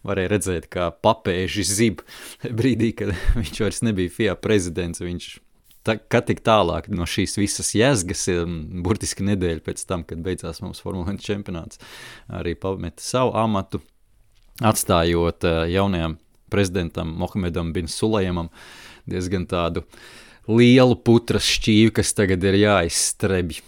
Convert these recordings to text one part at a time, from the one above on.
varēja redzēt, kā papēži zib brīdī, kad viņš vairs nebija FIA prezidents. Viņš kā tik tālāk no šīs visas jēzgas, burtiski nedēļa pēc tam, kad beidzās mums Formula 1 čempionāts, arī pameta savu amatu, atstājot jaunajam prezidentam Mohamedam bin Sulejamam diezgan tādu lielu putras šķīvi, kas tagad ir jāizstrebj.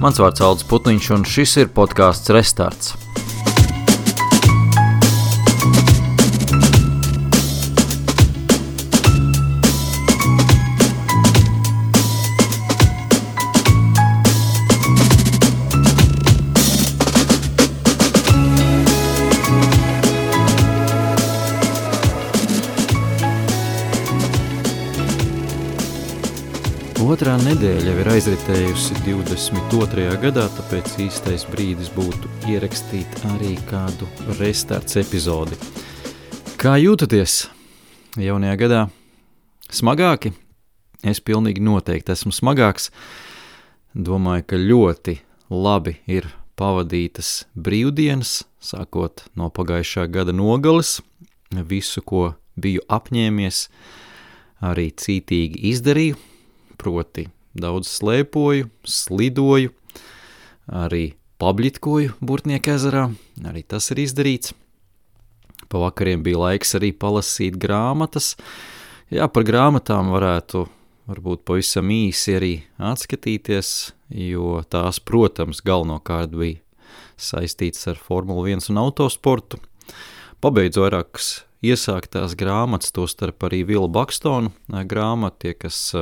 Mans vārds Aldis Putniņš, un šis ir podcasts Restarts. Otrā nedēļa jau ir aizritējusi 22. gadā, tāpēc īstais brīdis būtu ierakstīt arī kādu restarts epizodi. Kā jūtaties jaunajā gadā? Smagāki? Es pilnīgi noteikti esmu smagāks. Domāju, ka ļoti labi ir pavadītas brīvdienas, sākot no pagājušā gada nogales. Visu, ko biju apņēmies, arī cītīgi izdarīju. Proti daudz slēpoju, slidoju, arī pabļitkoju Burtnieku ezerā, arī tas ir izdarīts. Pa vakariem bija laiks arī palasīt grāmatas. Jā, par grāmatām varētu varbūt pavisam īsi arī atskatīties, jo tās, protams, galvenokārt bija saistīts ar Formula 1 un autosportu. Pabeidzu vairākas iesāktās grāmatas, tostarp arī Vila Bakstona grāmata, tie, kas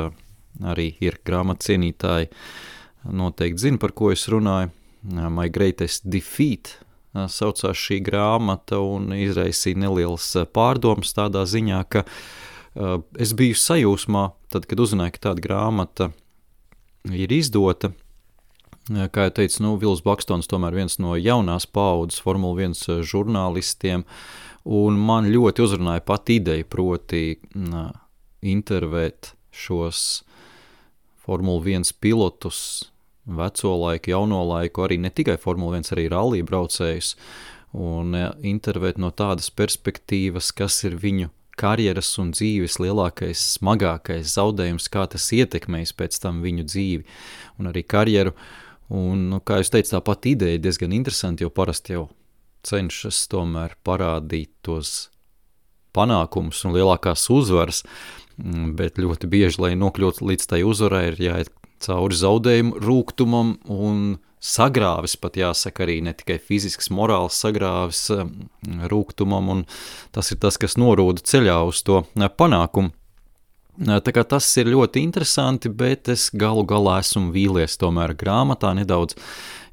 arī ir grāmatu cienītāji, noteikti zina, par ko es runāju. My Greatest Defeat saucās šī grāmata un izraisīja nelielas pārdomas tādā ziņā, ka es biju sajūsmā, tad, kad uzzināju, ka tāda grāmata ir izdota. Kā jau teicu, Vils Bakstons tomēr viens no jaunās paaudzes Formula 1 žurnālistiem, un man ļoti uzrunāja pat ideja, proti intervēt šos Formula 1 pilotus, veco laiku, jauno laiku, arī ne tikai Formula 1, arī rallija braucējus, un intervēt no tādas perspektīvas, kas ir viņu karjeras un dzīves lielākais, smagākais zaudējums, kā tas ietekmēs pēc tam viņu dzīvi un arī karjeru. Un, kā jūs teicu, tā pati ideja diezgan interesanti, jo parasti jau cenšas tomēr parādīt tos panākumus un lielākās uzvaras, bet ļoti bieži, lai nokļūtu līdz tai uzvarai, ir jāiet cauri zaudējumu rūgtumam un sagrāvis, pat jāsaka arī ne tikai fizisks, morāls sagrāvis rūgtumam, un tas ir tas, kas norūda ceļā uz to panākumu. Tā kā tas ir ļoti interesanti, bet es galu galā esmu vīlies tomēr grāmatā nedaudz.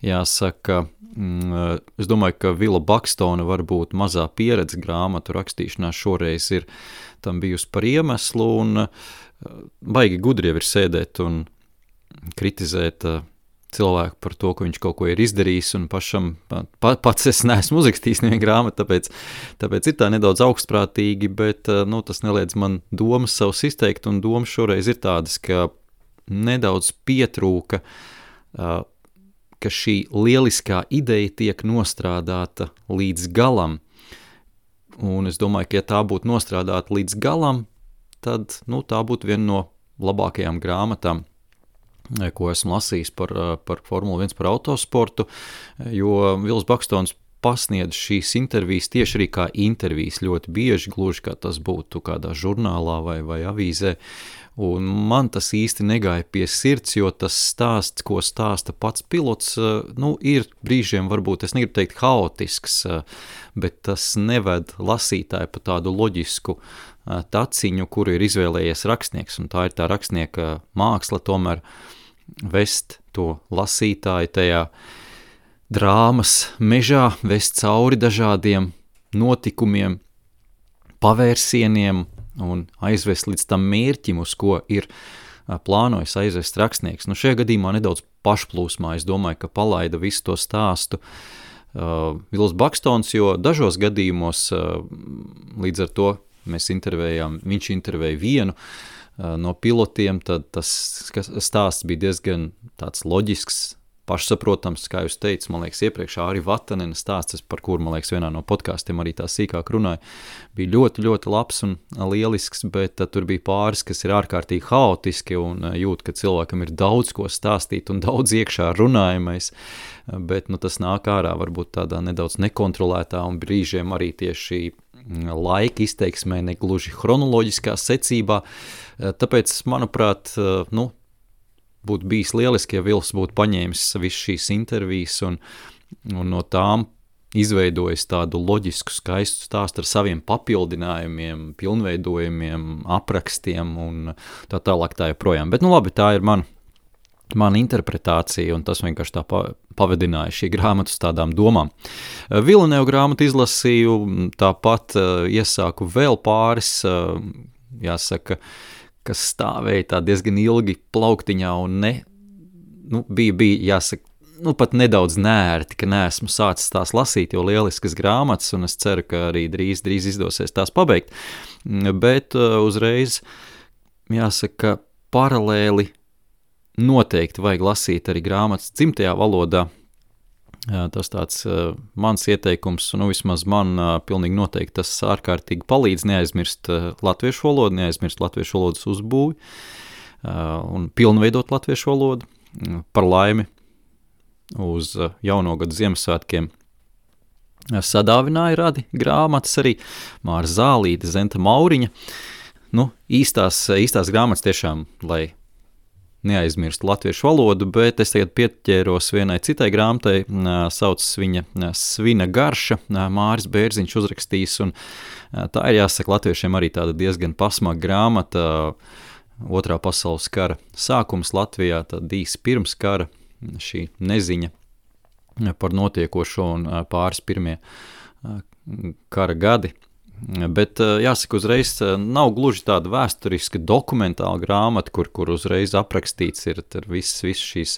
Jāsaka, es domāju, ka Vila Bakstona varbūt mazā pieredze grāmatu rakstīšanā šoreiz ir tam bijusi par iemeslu, un baigi gudri jau ir sēdēt un kritizēt cilvēku par to, ka viņš kaut ko ir izdarījis, un pašam pats es neesmu uzrakstījis nevienu grāmatu, tāpēc ir tā nedaudz augstprātīgi, bet tas neliedz man domas savus izteikt, un domas šoreiz ir tādas, ka nedaudz pietrūka, ka šī lieliskā ideja tiek nostrādāta līdz galam, un es domāju, ka ja tā būtu nostrādāta līdz galam, tad tā būtu viena no labākajām grāmatām, ko esmu lasījis par Formula 1, par autosportu, jo Vils Bakstons pasniedz šīs intervijas tieši arī kā intervijas ļoti bieži, gluži kā tas būtu kādā žurnālā vai avīzē, un man tas īsti negāja pie sirds, jo tas stāsts, ko stāsta pats pilots, ir brīžiem varbūt, es negribu teikt haotisks, bet tas neved lasītāju pa tādu loģisku taciņu, kuru ir izvēlējies rakstnieks, un tā ir tā rakstnieka māksla tomēr vest to lasītāju tajā drāmas mežā, vest cauri dažādiem notikumiem, pavērsieniem un aizvest līdz tam mērķim, uz ko ir plānojis aizvest rakstnieks. Šajā gadījumā nedaudz pašplūsmā, es domāju, ka palaida visu to stāstu Vils Bakstons, jo dažos gadījumos līdz ar to viņš intervēja vienu no pilotiem, tad tas stāsts bija diezgan tāds loģisks, pašsaprotams, kā jūs teicu, man liekas, iepriekš Āri Vatanena stāsts, par kuru, man liekas, vienā no podkāstiem arī tā sīkāk runāja, bija ļoti, ļoti labs un lielisks, bet tur bija pāris, kas ir ārkārtīgi haotiski un jūt, ka cilvēkam ir daudz ko stāstīt un daudz iekšā runājamais, bet tas nāk ārā varbūt tādā nedaudz nekontrolētā un brīžiem arī tieši laika izteiksmē, negluži chronoloģiskā secībā, tāpēc, manuprāt, būtu bijis lieliski, ja Vils būtu paņēmis visu šīs intervijas un no tām izveidojis tādu loģisku, skaistu stāstu ar saviem papildinājumiem, pilnveidojumiem, aprakstiem un tā tālāk tā joprojām. Bet, labi, tā ir mana interpretācija, un tas vienkārši tā pavadināja šī grāmata uz tādām domām. Villeneuve grāmatu izlasīju, tāpat iesāku vēl pāris, jāsaka, kas stāvēja tā diezgan ilgi plauktiņā un bija jāsaka, pat nedaudz nērti, ka neesmu sācis tās lasīt, jo lieliskas grāmatas, un es ceru, ka arī drīz izdosies tās pabeigt, bet uzreiz, jāsaka, paralēli noteikti vajag lasīt arī grāmatas dzimtajā valodā. Tas tāds mans ieteikums, vismaz man pilnīgi noteikti tas ārkārtīgi palīdz neaizmirst latviešu valodu, neaizmirst latviešu valodas uzbūvi un pilnveidot latviešu valodu. Par laimi uz jauno gadu Ziemassvētkiem sadāvināja radi grāmatas arī Māra Zālīte, Zenta Mauriņa. Īstās grāmatas tiešām, lai neaizmirstu latviešu valodu, bet es tagad pieķēros vienai citai grāmatai, saucas viņa Svina garša, Māris Bērziņš uzrakstījis, un tā ir jāsaka latviešiem arī tāda diezgan pasmaga grāmata, Otrā pasaules kara sākums Latvijā, tad īsi pirms kara, šī neziņa par notiekošo un pāris pirmie kara gadi. Bet jāsaka uzreiz, nav gluži tāda vēsturiska dokumentāla grāmata, kur uzreiz aprakstīts ir viss šīs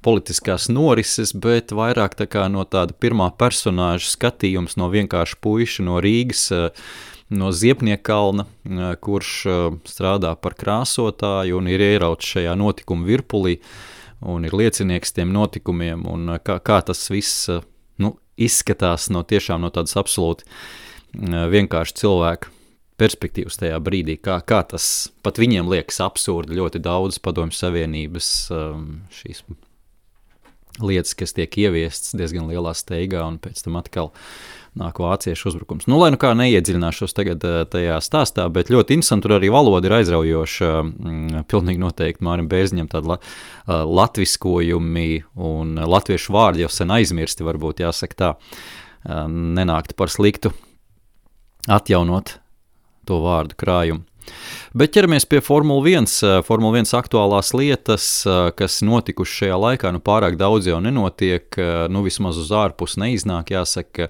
politiskās norises, bet vairāk tā kā no tāda pirmā personāža skatījums no vienkārši puiša no Rīgas, no Ziepniekalna, kurš strādā par krāsotāju un ir ierauts šajā notikuma virpulī un ir liecinieks tiem notikumiem un kā tas viss izskatās no tādas absolūti vienkārši cilvēku perspektīvas tajā brīdī, kā tas pat viņiem liekas absurdi, ļoti daudz Padomju Savienības šīs lietas, kas tiek ieviestas diezgan lielā steigā un pēc tam atkal nāk vāciešu uzbrukums. Lai kā neiedziļināšos tagad tajā stāstā, bet ļoti interesanti, tur arī valoda ir aizraujoša, pilnīgi noteikti Mārim Bērziņam tādi latviskojumi un latviešu vārdi jau sen aizmirsti, varbūt jāsaka tā, nenākt par sliktu atjaunot to vārdu krājumu. Bet ķeramies pie Formula 1. Formula 1 aktuālās lietas, kas notikuši šajā laikā, pārāk daudz jau nenotiek, vismaz uz ārpus neiznāk, jāsaka,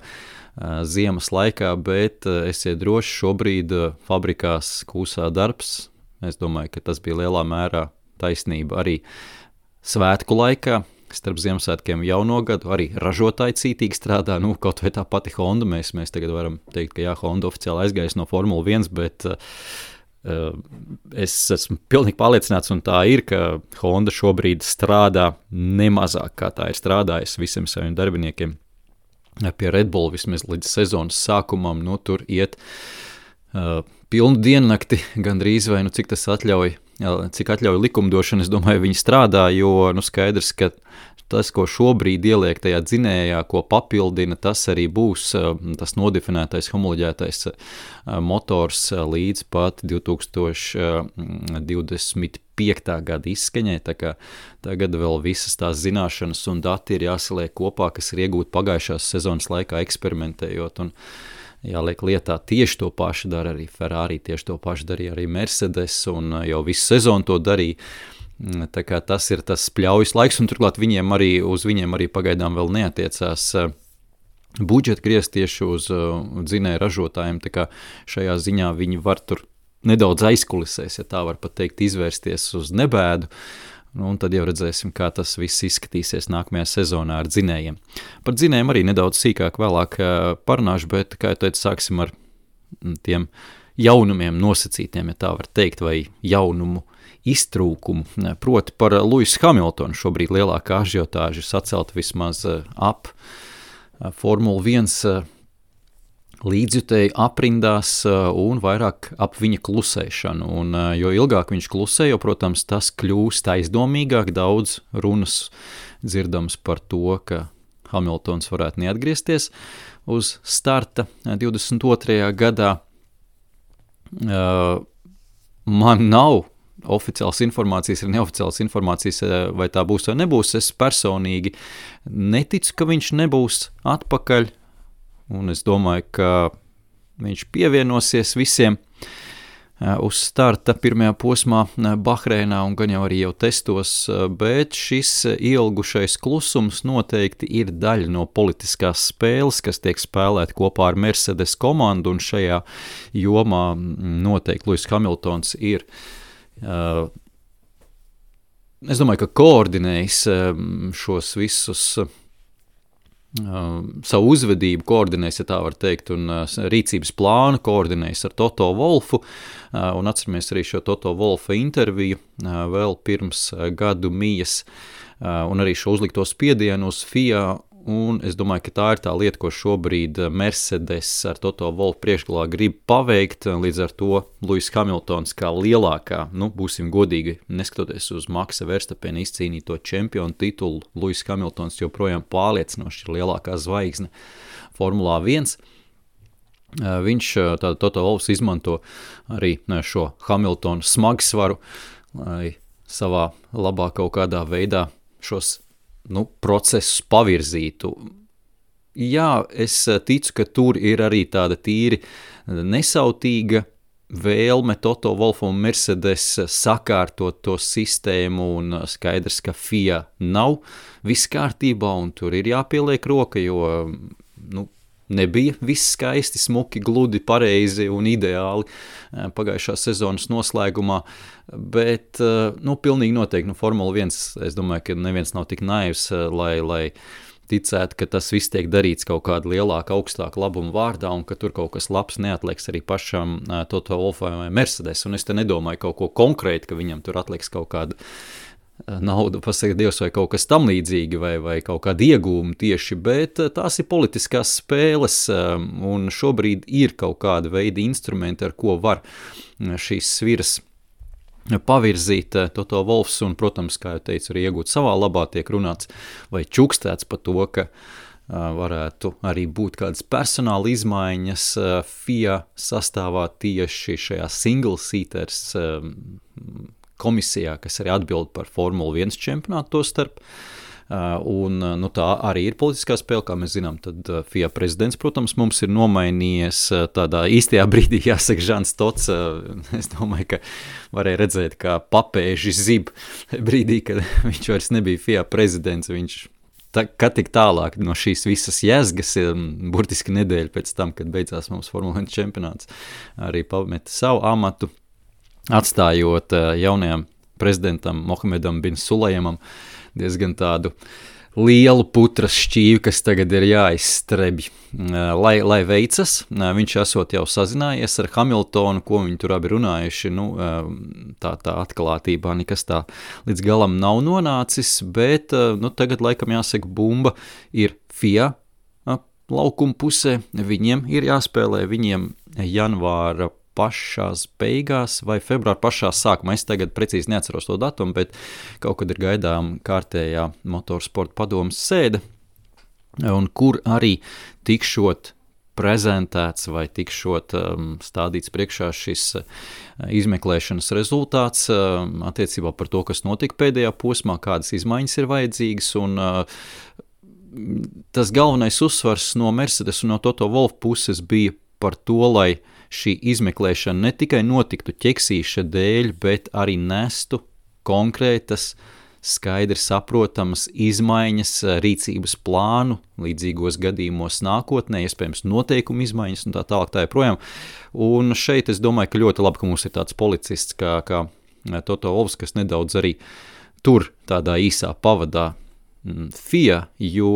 ziemas laikā, bet esiet droši, šobrīd fabrikās kūsā darbs. Es domāju, ka tas bija lielā mērā taisnība arī svētku laikā. Starp Ziemassvētkiem jauno gadu arī ražotāji cītīgi strādā, kaut vai tā pati Honda, mēs tagad varam teikt, ka Honda oficiāli aizgājis no Formula 1, bet es esmu pilnīgi pārliecināts, un tā ir, ka Honda šobrīd strādā nemazāk, kā tā ir strādājusi visiem saviem darbiniekiem pie Red Bull vismaz līdz sezonas sākumam, tur iet pilnu diennakti gandrīz vai, cik tas atļauj, cik atļauj likumdošana, es domāju, viņi strādā, jo skaidrs, ka tas, ko šobrīd ieliek tajā dzinējā, ko papildina, tas arī būs tas nodefinētais, homoloģētais motors līdz pat 2025. Gada izskaņai, tā kā tagad vēl visas tās zināšanas un dati ir jāsaliek kopā, kas ir iegūti pagājušās sezonas laikā eksperimentējot, un jāliek lietā tieši to pašu dara arī Ferrari, tieši to pašu darīja arī Mercedes, un jau visu sezonu to darīja. Tā kā tas ir tas pļaujas laiks, un turklāt uz viņiem arī pagaidām vēl neatiecās budžeta griezt tieši uz dzinēju ražotājiem, tā kā šajā ziņā viņi var tur nedaudz aizkulisēs, ja tā var pat teikt, izvērsties uz nebēdu, Un tad jau redzēsim, kā tas viss izskatīsies nākamajā sezonā ar dzinējiem. Par dzinējiem arī nedaudz sīkāk vēlāk parunāšu, bet, kā jau teicu, sāksim ar tiem jaunumiem nosacītiem, ja tā var teikt, vai jaunumu iztrūkumu. Proti par Lewisu Hamiltonu šobrīd lielākā ažiotāža sacelta vismaz ap Formula 1 līdzjutēju aprindās un vairāk ap viņa klusēšanu. Un, jo ilgāk viņš klusē, jo, protams, tas kļūst aizdomīgāk, daudz runas dzirdams par to, ka Hamiltons varētu neatgriezties uz starta 22. gadā. Man nav oficiāls informācijas, ir neoficiāls informācijas, vai tā būs vai nebūs. Es personīgi neticu, ka viņš nebūs atpakaļ, un es domāju, ka viņš pievienosies visiem uz starta pirmajā posmā Bahreinā un gan jau arī jau testos, bet šis ilgušais klusums noteikti ir daļa no politiskās spēles, kas tiek spēlēta kopā ar Mercedes komandu, un šajā jomā noteikti Lewis Hamiltons ir es domāju, ka koordinējis šos visus savu uzvedību koordinējis, ja tā var teikt, un rīcības plānu koordinējis ar Toto Wolfu, un atceramies arī šo Toto Wolfa interviju vēl pirms gadu mijas, un arī šo uzlikto spiedienu uz FIA, un es domāju, ka tā ir tā lieta, ko šobrīd Mercedes ar Toto Wolfu priekšgalā grib paveikt, līdz ar to Lewis Hamiltons kā lielākā, būsim godīgi, neskatoties uz Maxa Verstappena izcīnīto čempionu titulu, Lewis Hamiltons joprojām pārliecinoši ir lielākā zvaigzne Formulā 1. Viņš, tātad Toto Wolfs, izmanto arī šo Hamiltonu smagsvaru, lai savā labā kaut kādā veidā šos procesus pavirzītu. Jā, es ticu, ka tur ir arī tāda tīri nesautīga vēlme Toto Wolfu un Mercedes sakārtot to sistēmu, un skaidrs, ka FIA nav viss kārtībā, un tur ir jāpieliek roka, jo nebija viss skaisti, smuki, gludi, pareizi un ideāli pagājušā sezonas noslēgumā, bet, pilnīgi noteikti, Formula 1, es domāju, ka neviens nav tik naivs, lai ticētu, ka tas viss tiek darīts kaut kāda lielāka, augstāka labuma vārdā, un ka tur kaut kas labs neatliks arī pašam Toto Wolfam vai Mercedes, un es te nedomāju kaut ko konkrēti, ka viņam tur atliks kaut kāda naudu, pasaka Dievs, vai kaut kas tam līdzīgi, vai kaut kāda iegūma tieši, bet tās ir politiskās spēles, un šobrīd ir kaut kāda veida instrumenti, ar ko var šīs sviras pavirzīt Toto Wolfs, un, protams, kā jau teicu, arī iegūt savā labā, tiek runāts vai čukstēts par to, ka varētu arī būt kādas personāla izmaiņas FIA sastāvā tieši šajā single seaters komisijā, kas arī atbild par Formula 1 čempionātu to starp. Un tā arī ir politiskā spēle, kā mēs zinām, tad FIA prezidents, protams, mums ir nomainījies tādā īstajā brīdī, jāsaka, Žans Tots, es domāju, ka varēja redzēt, kā papēži zib brīdī, kad viņš vairs nebija FIA prezidents, viņš kad tik tālāk no šīs visas jēzgas, burtiski nedēļa pēc tam, kad beidzās mums Formula 1 čempionāts, arī pameta savu amatu, atstājot jaunajam prezidentam Mohamedam bin Sulejamam diezgan tādu lielu putras šķīvi, kas tagad ir jāizstrebj, lai veicas. Viņš esot jau sazinājies ar Hamiltonu, ko viņi tur abi runājuši, tā atklātībā nekas tā līdz galam nav nonācis, bet tagad laikam jāsaka bumba ir FIA laukuma pusē, viņiem ir jāspēlē, viņiem janvāra pašās beigās vai februāra pašā sākumā. Es tagad precīzi neatceros to datumu, bet kaut kad ir gaidām kārtējā motorsporta padomas sēde, un kur arī tikšot prezentēts vai tikšot stādīts priekšā šis izmeklēšanas rezultāts attiecībā par to, kas notika pēdējā posmā, kādas izmaiņas ir vajadzīgas, un tas galvenais uzsvars no Mercedes un no Toto Wolff puses bija par to, lai šī izmeklēšana ne tikai notiktu ķeksīša dēļ, bet arī nestu konkrētas, skaidri saprotamas izmaiņas, rīcības plānu līdzīgos gadījumos nākotnē, iespējams noteikumu izmaiņas un tā tālāk tā joprojām. Un šeit es domāju, ka ļoti labi, ka mums ir tāds policists kā Toto Wolffs, kas nedaudz arī tur tādā īsā pavadā FIA, jo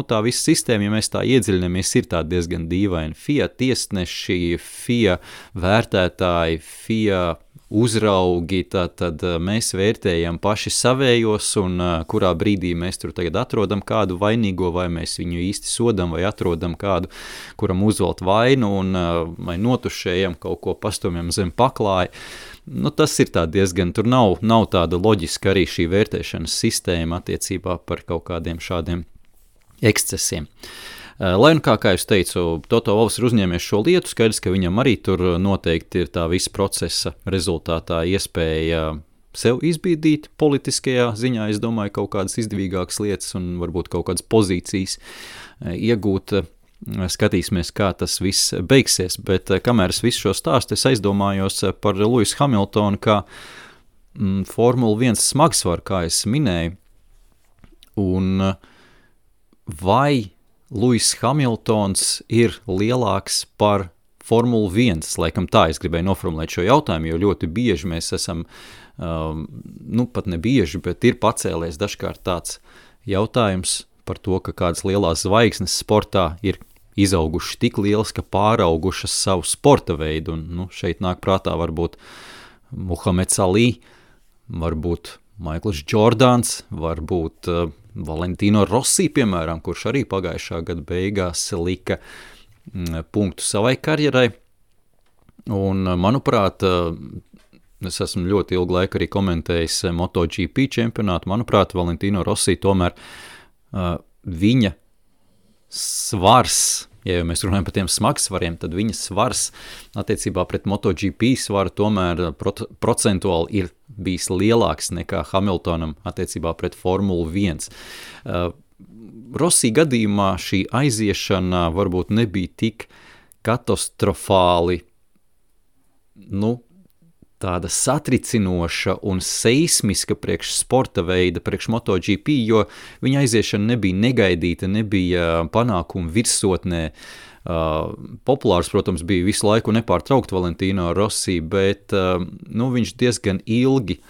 tā visa sistēma, ja mēs tā iedziļinamies, ir tā diezgan dīvaina. FIA tiesneši, FIA vērtētāji, FIA uzraugi, tad mēs vērtējam paši savējos un kurā brīdī mēs tur tagad atrodam kādu vainīgo, vai mēs viņu īsti sodam, vai atrodam kādu, kuram uzvelt vainu un vai notušējam kaut ko pastumjam zem paklāja. Tas ir tā diezgan, tur nav tāda loģiska arī šī vērtēšanas sistēma attiecībā par kaut kādiem šādiem ekscesiem. Lai un kā jūs teicu, Toto Wolffs ir uzņēmies šo lietu, skaidrs, ka viņam arī tur noteikti ir tā visa procesa rezultātā iespēja sev izbīdīt politiskajā ziņā, es domāju, kaut kādas izdevīgākas lietas un varbūt kaut kādas pozīcijas iegūt. Skatīsimies, kā tas viss beigsies, bet kamēr es visu šo stāstu, es aizdomājos par Lewisu Hamiltonu, kā Formula 1 smagsvaru, kā es minēju, un vai Lewis Hamiltons ir lielāks par Formula 1, laikam tā es gribēju noformulēt šo jautājumu, jo ļoti bieži mēs esam, pat ne bieži, bet ir pacēlies dažkārt tāds jautājums par to, ka kādas lielās zvaigznes sportā ir izaugušas tik lielas, ka pāraugušas savu sporta veidu, un šeit nāk prātā varbūt Muhameds Ali, varbūt Maikls Jordans, varbūt Valentino Rossi, piemēram, kurš arī pagājušā gada beigās lika punktu savai karjerai, un manuprāt, es esmu ļoti ilgu laiku arī komentējis MotoGP čempionātu, manuprāt, Valentino Rossi tomēr viņa svars, ja mēs runājam par tiem smagsvariem, tad viņa svars attiecībā pret MotoGP svaru tomēr procentuāli ir bijis lielāks nekā Hamiltonam attiecībā pret Formulu 1. Rossi gadījumā šī aiziešana varbūt nebija tik katastrofāli, tāda satricinoša un seismiska priekš sporta veida, priekš MotoGP, jo viņa aiziešana nebija negaidīta, nebija panākuma virsotnē. Populārs, protams, bija visu laiku nepārtraukt Valentino Rossi, bet viņš diezgan ilgi,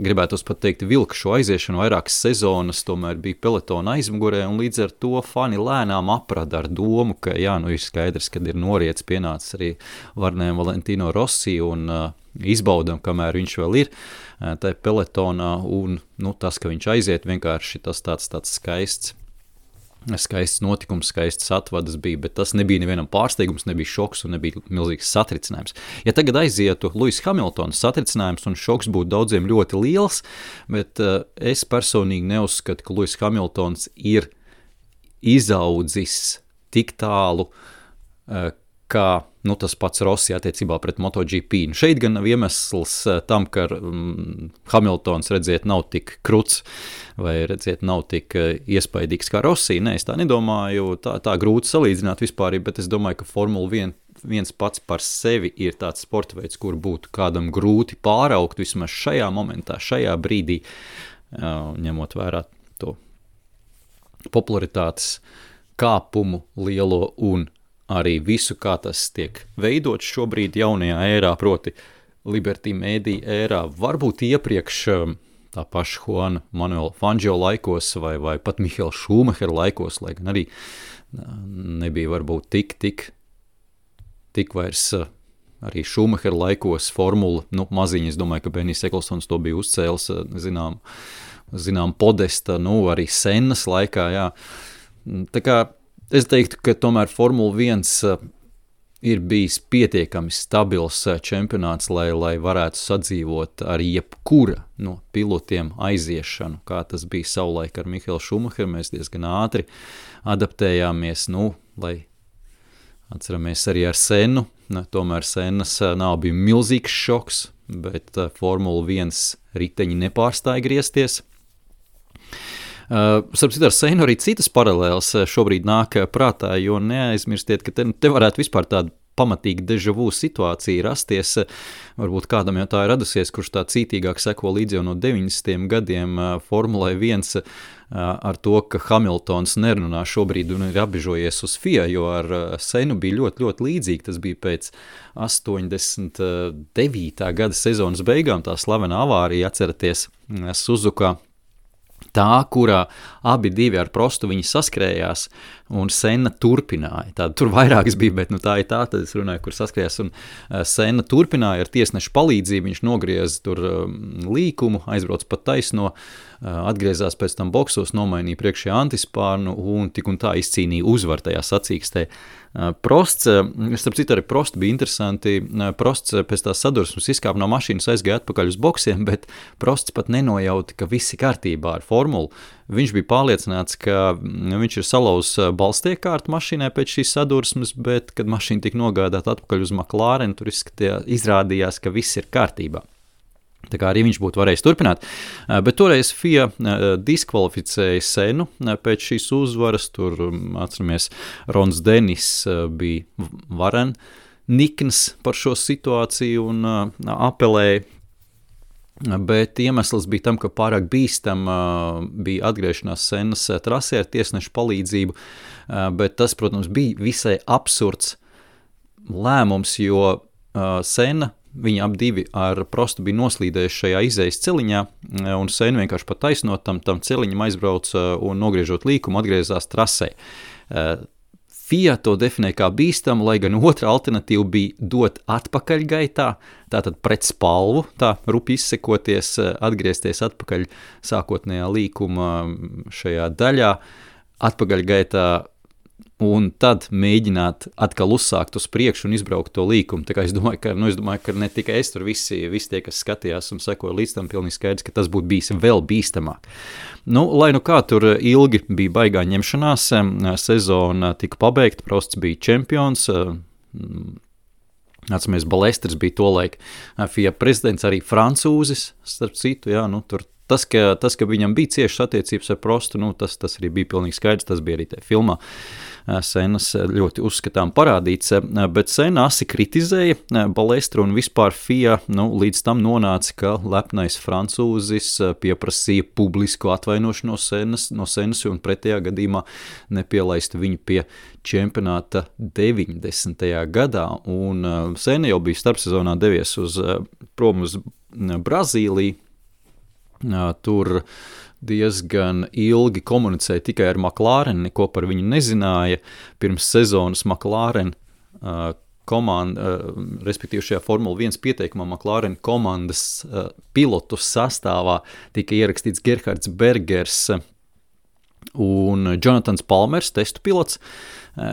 gribētos pat teikt, vilka šo aiziešanu, vairākas sezonas, tomēr bija pelotona aizmugurē, un līdz ar to fani lēnām aprada ar domu, ka ir skaidrs, kad ir noriets pienācis arī varnēm Valentino Rossi, un izbaudam, kamēr viņš vēl ir tajā pelotonā, un tas, ka viņš aiziet, vienkārši tas tāds skaists notikums, skaists atvadas bija, bet tas nebija nevienam pārsteigums, nebija šoks un nebija milzīgs satricinājums. Ja tagad aizietu Lewis Hamiltons, satricinājums un šoks būtu daudziem ļoti liels, bet es personīgi neuzskatu, ka Lewis Hamiltons ir izaudzis tik tālu, kā tas pats Rossi attiecībā pret MotoGP. Šeit gan nav iemesls tam, ka Hamiltons, redziet, nav tik kruts vai, redziet, nav tik iespaidīgs kā Rossi. Nē, es tā nedomāju, tā grūti salīdzināt vispār, bet es domāju, ka Formula 1 pats par sevi ir tāds sporta veids, kur būtu kādam grūti pāraugt vismaz šajā momentā, šajā brīdī, ņemot vērā to popularitātes kāpumu lielo un arī visu, kā tas tiek veidots šobrīd jaunajā ērā, proti Liberty Media ērā, varbūt iepriekš tā paša Juana Manuela Fangio laikos vai pat Mihaela Šumahera laikos, lai gan arī nebija varbūt tik vairs arī Šumahera laikos formula, maziņi, es domāju, ka Benijs Eklsons to bija uzcēlis, zinām podesta, arī Sennas laikā, jā. Tā kā es teiktu, ka tomēr Formula 1 ir bijis pietiekami stabils čempionāts, lai varētu sadzīvot ar jebkura no pilotiem aiziešanu, kā tas bija savulaik ar Mihaelu Šumacheru. Mēs diezgan ātri adaptējāmies, lai atceramies arī ar Sennu. Tomēr Sennas nav bija milzīgs šoks, bet Formula 1 riteņi nepārstāja griezties. Starp citu ar Sennu arī citas paralēles šobrīd nāk prātā, jo neaizmirstiet, ka te varētu vispār tāda pamatīgi deja vu situācija rasties. Varbūt kādam jau tā ir radusies, kurš tā cītīgāk seko līdz jau no 90. gadiem Formulai 1 ar to, ka Hamiltons nerunā šobrīd un ir apbežojies uz FIA, jo ar Sennu bija ļoti, ļoti līdzīgi. Tas bija pēc 89. gada sezonas beigām, tā slavenā avārija, atceraties, Suzuka, tā, kurā abi divi ar Prostu viņi saskrējās, un Senna turpināja. Tur vairākas bija, bet tā ir tā, tad es runāju, kur saskrējās, un Senna turpināja ar tiesnešu palīdzību, viņš nogrieza tur līkumu, aizbrauc pa taisno, atgriezās pēc tam boksos, nomainīja priekšējā antispārnu un tik un tā izcīnīja uzvaru tajā sacīkstē. Prosts, starp citu arī Prosts bija interesanti, Prosts pēc tās sadursmes izkāpa no mašīnas, aizgāja atpakaļ uz boksiem, bet Prosts pat nenojauta, ka viss ir kārtībā ar formulu. Viņš bija pārliecināts, ka viņš ir salauzis balstiekārtu mašīnai pēc šīs sadursmes, bet, kad mašīna tika nogādāta atpakaļ uz McLaren, tur izrādījās, ka viss ir kārtībā. Tā kā arī viņš būtu varējis turpināt, bet toreiz FIA diskvalificēja Sennu pēc šīs uzvaras, tur, atceramies, Rons Denis bija varen nikns par šo situāciju un apelēja, bet iemesls bija tam, ka pārāk bīstam bija atgriešanās Sennas trasē ar tiesnešu palīdzību, bet tas, protams, bija visai absurds lēmums, jo Senna viņi ap divi ar Prostu bija noslīdējuši šajā izejas celiņā, un Senna vienkārši pa taisnot tam celiņam aizbrauca un nogriežot līkumu atgriezās trasē. FIA to definē kā bīstamu, lai gan otra alternatīva bija dot atpakaļgaitā, tātad pret spalvu, tā rupi izsekoties, atgriezties atpakaļ sākotnējā līkuma šajā daļā, atpakaļgaitā, un tad mēģināt atkal uzsākt uz priekšu un izbraukt to līkumu. Tā kā es domāju, ka ne tikai es, tur visi tie, kas skatījās un sekoja līdz tam, pilnīgi skaidrs, ka tas būtu bijis vēl bīstamāk. Lai kā tur ilgi bija baigā ņemšanās, sezona tika pabeigta, Prosts bija čempions, atceramies, Balesters bija tolaik FIA prezidents, arī francūzis, starp citu, jā, tur tas, ka viņam bija ciešas attiecības ar Prostu, tas arī bija pilnīgi skaidrs, tas bija arī tajā filmā. Sennas ļoti uzskatām parādīts, bet Senna asi kritizēja Balestru un vispār FIA, līdz tam nonāca, ka lepnais francūzis pieprasīja publisku atvainošanos no Sennas un pretējā gadījumā nepielaistu viņu pie čempionāta 90. gadā, un Senna jau bija starpsezonā devies prom uz Brazīliju, tur diezgan ilgi komunicēja tikai ar McLaren, neko par viņu nezināja. Pirms sezonas McLaren komanda, respektīvi šajā Formula 1 pieteikumā McLaren komandas pilotu sastāvā tika ierakstīts Gerhards Bergers un Jonathans Palmers, testu pilots,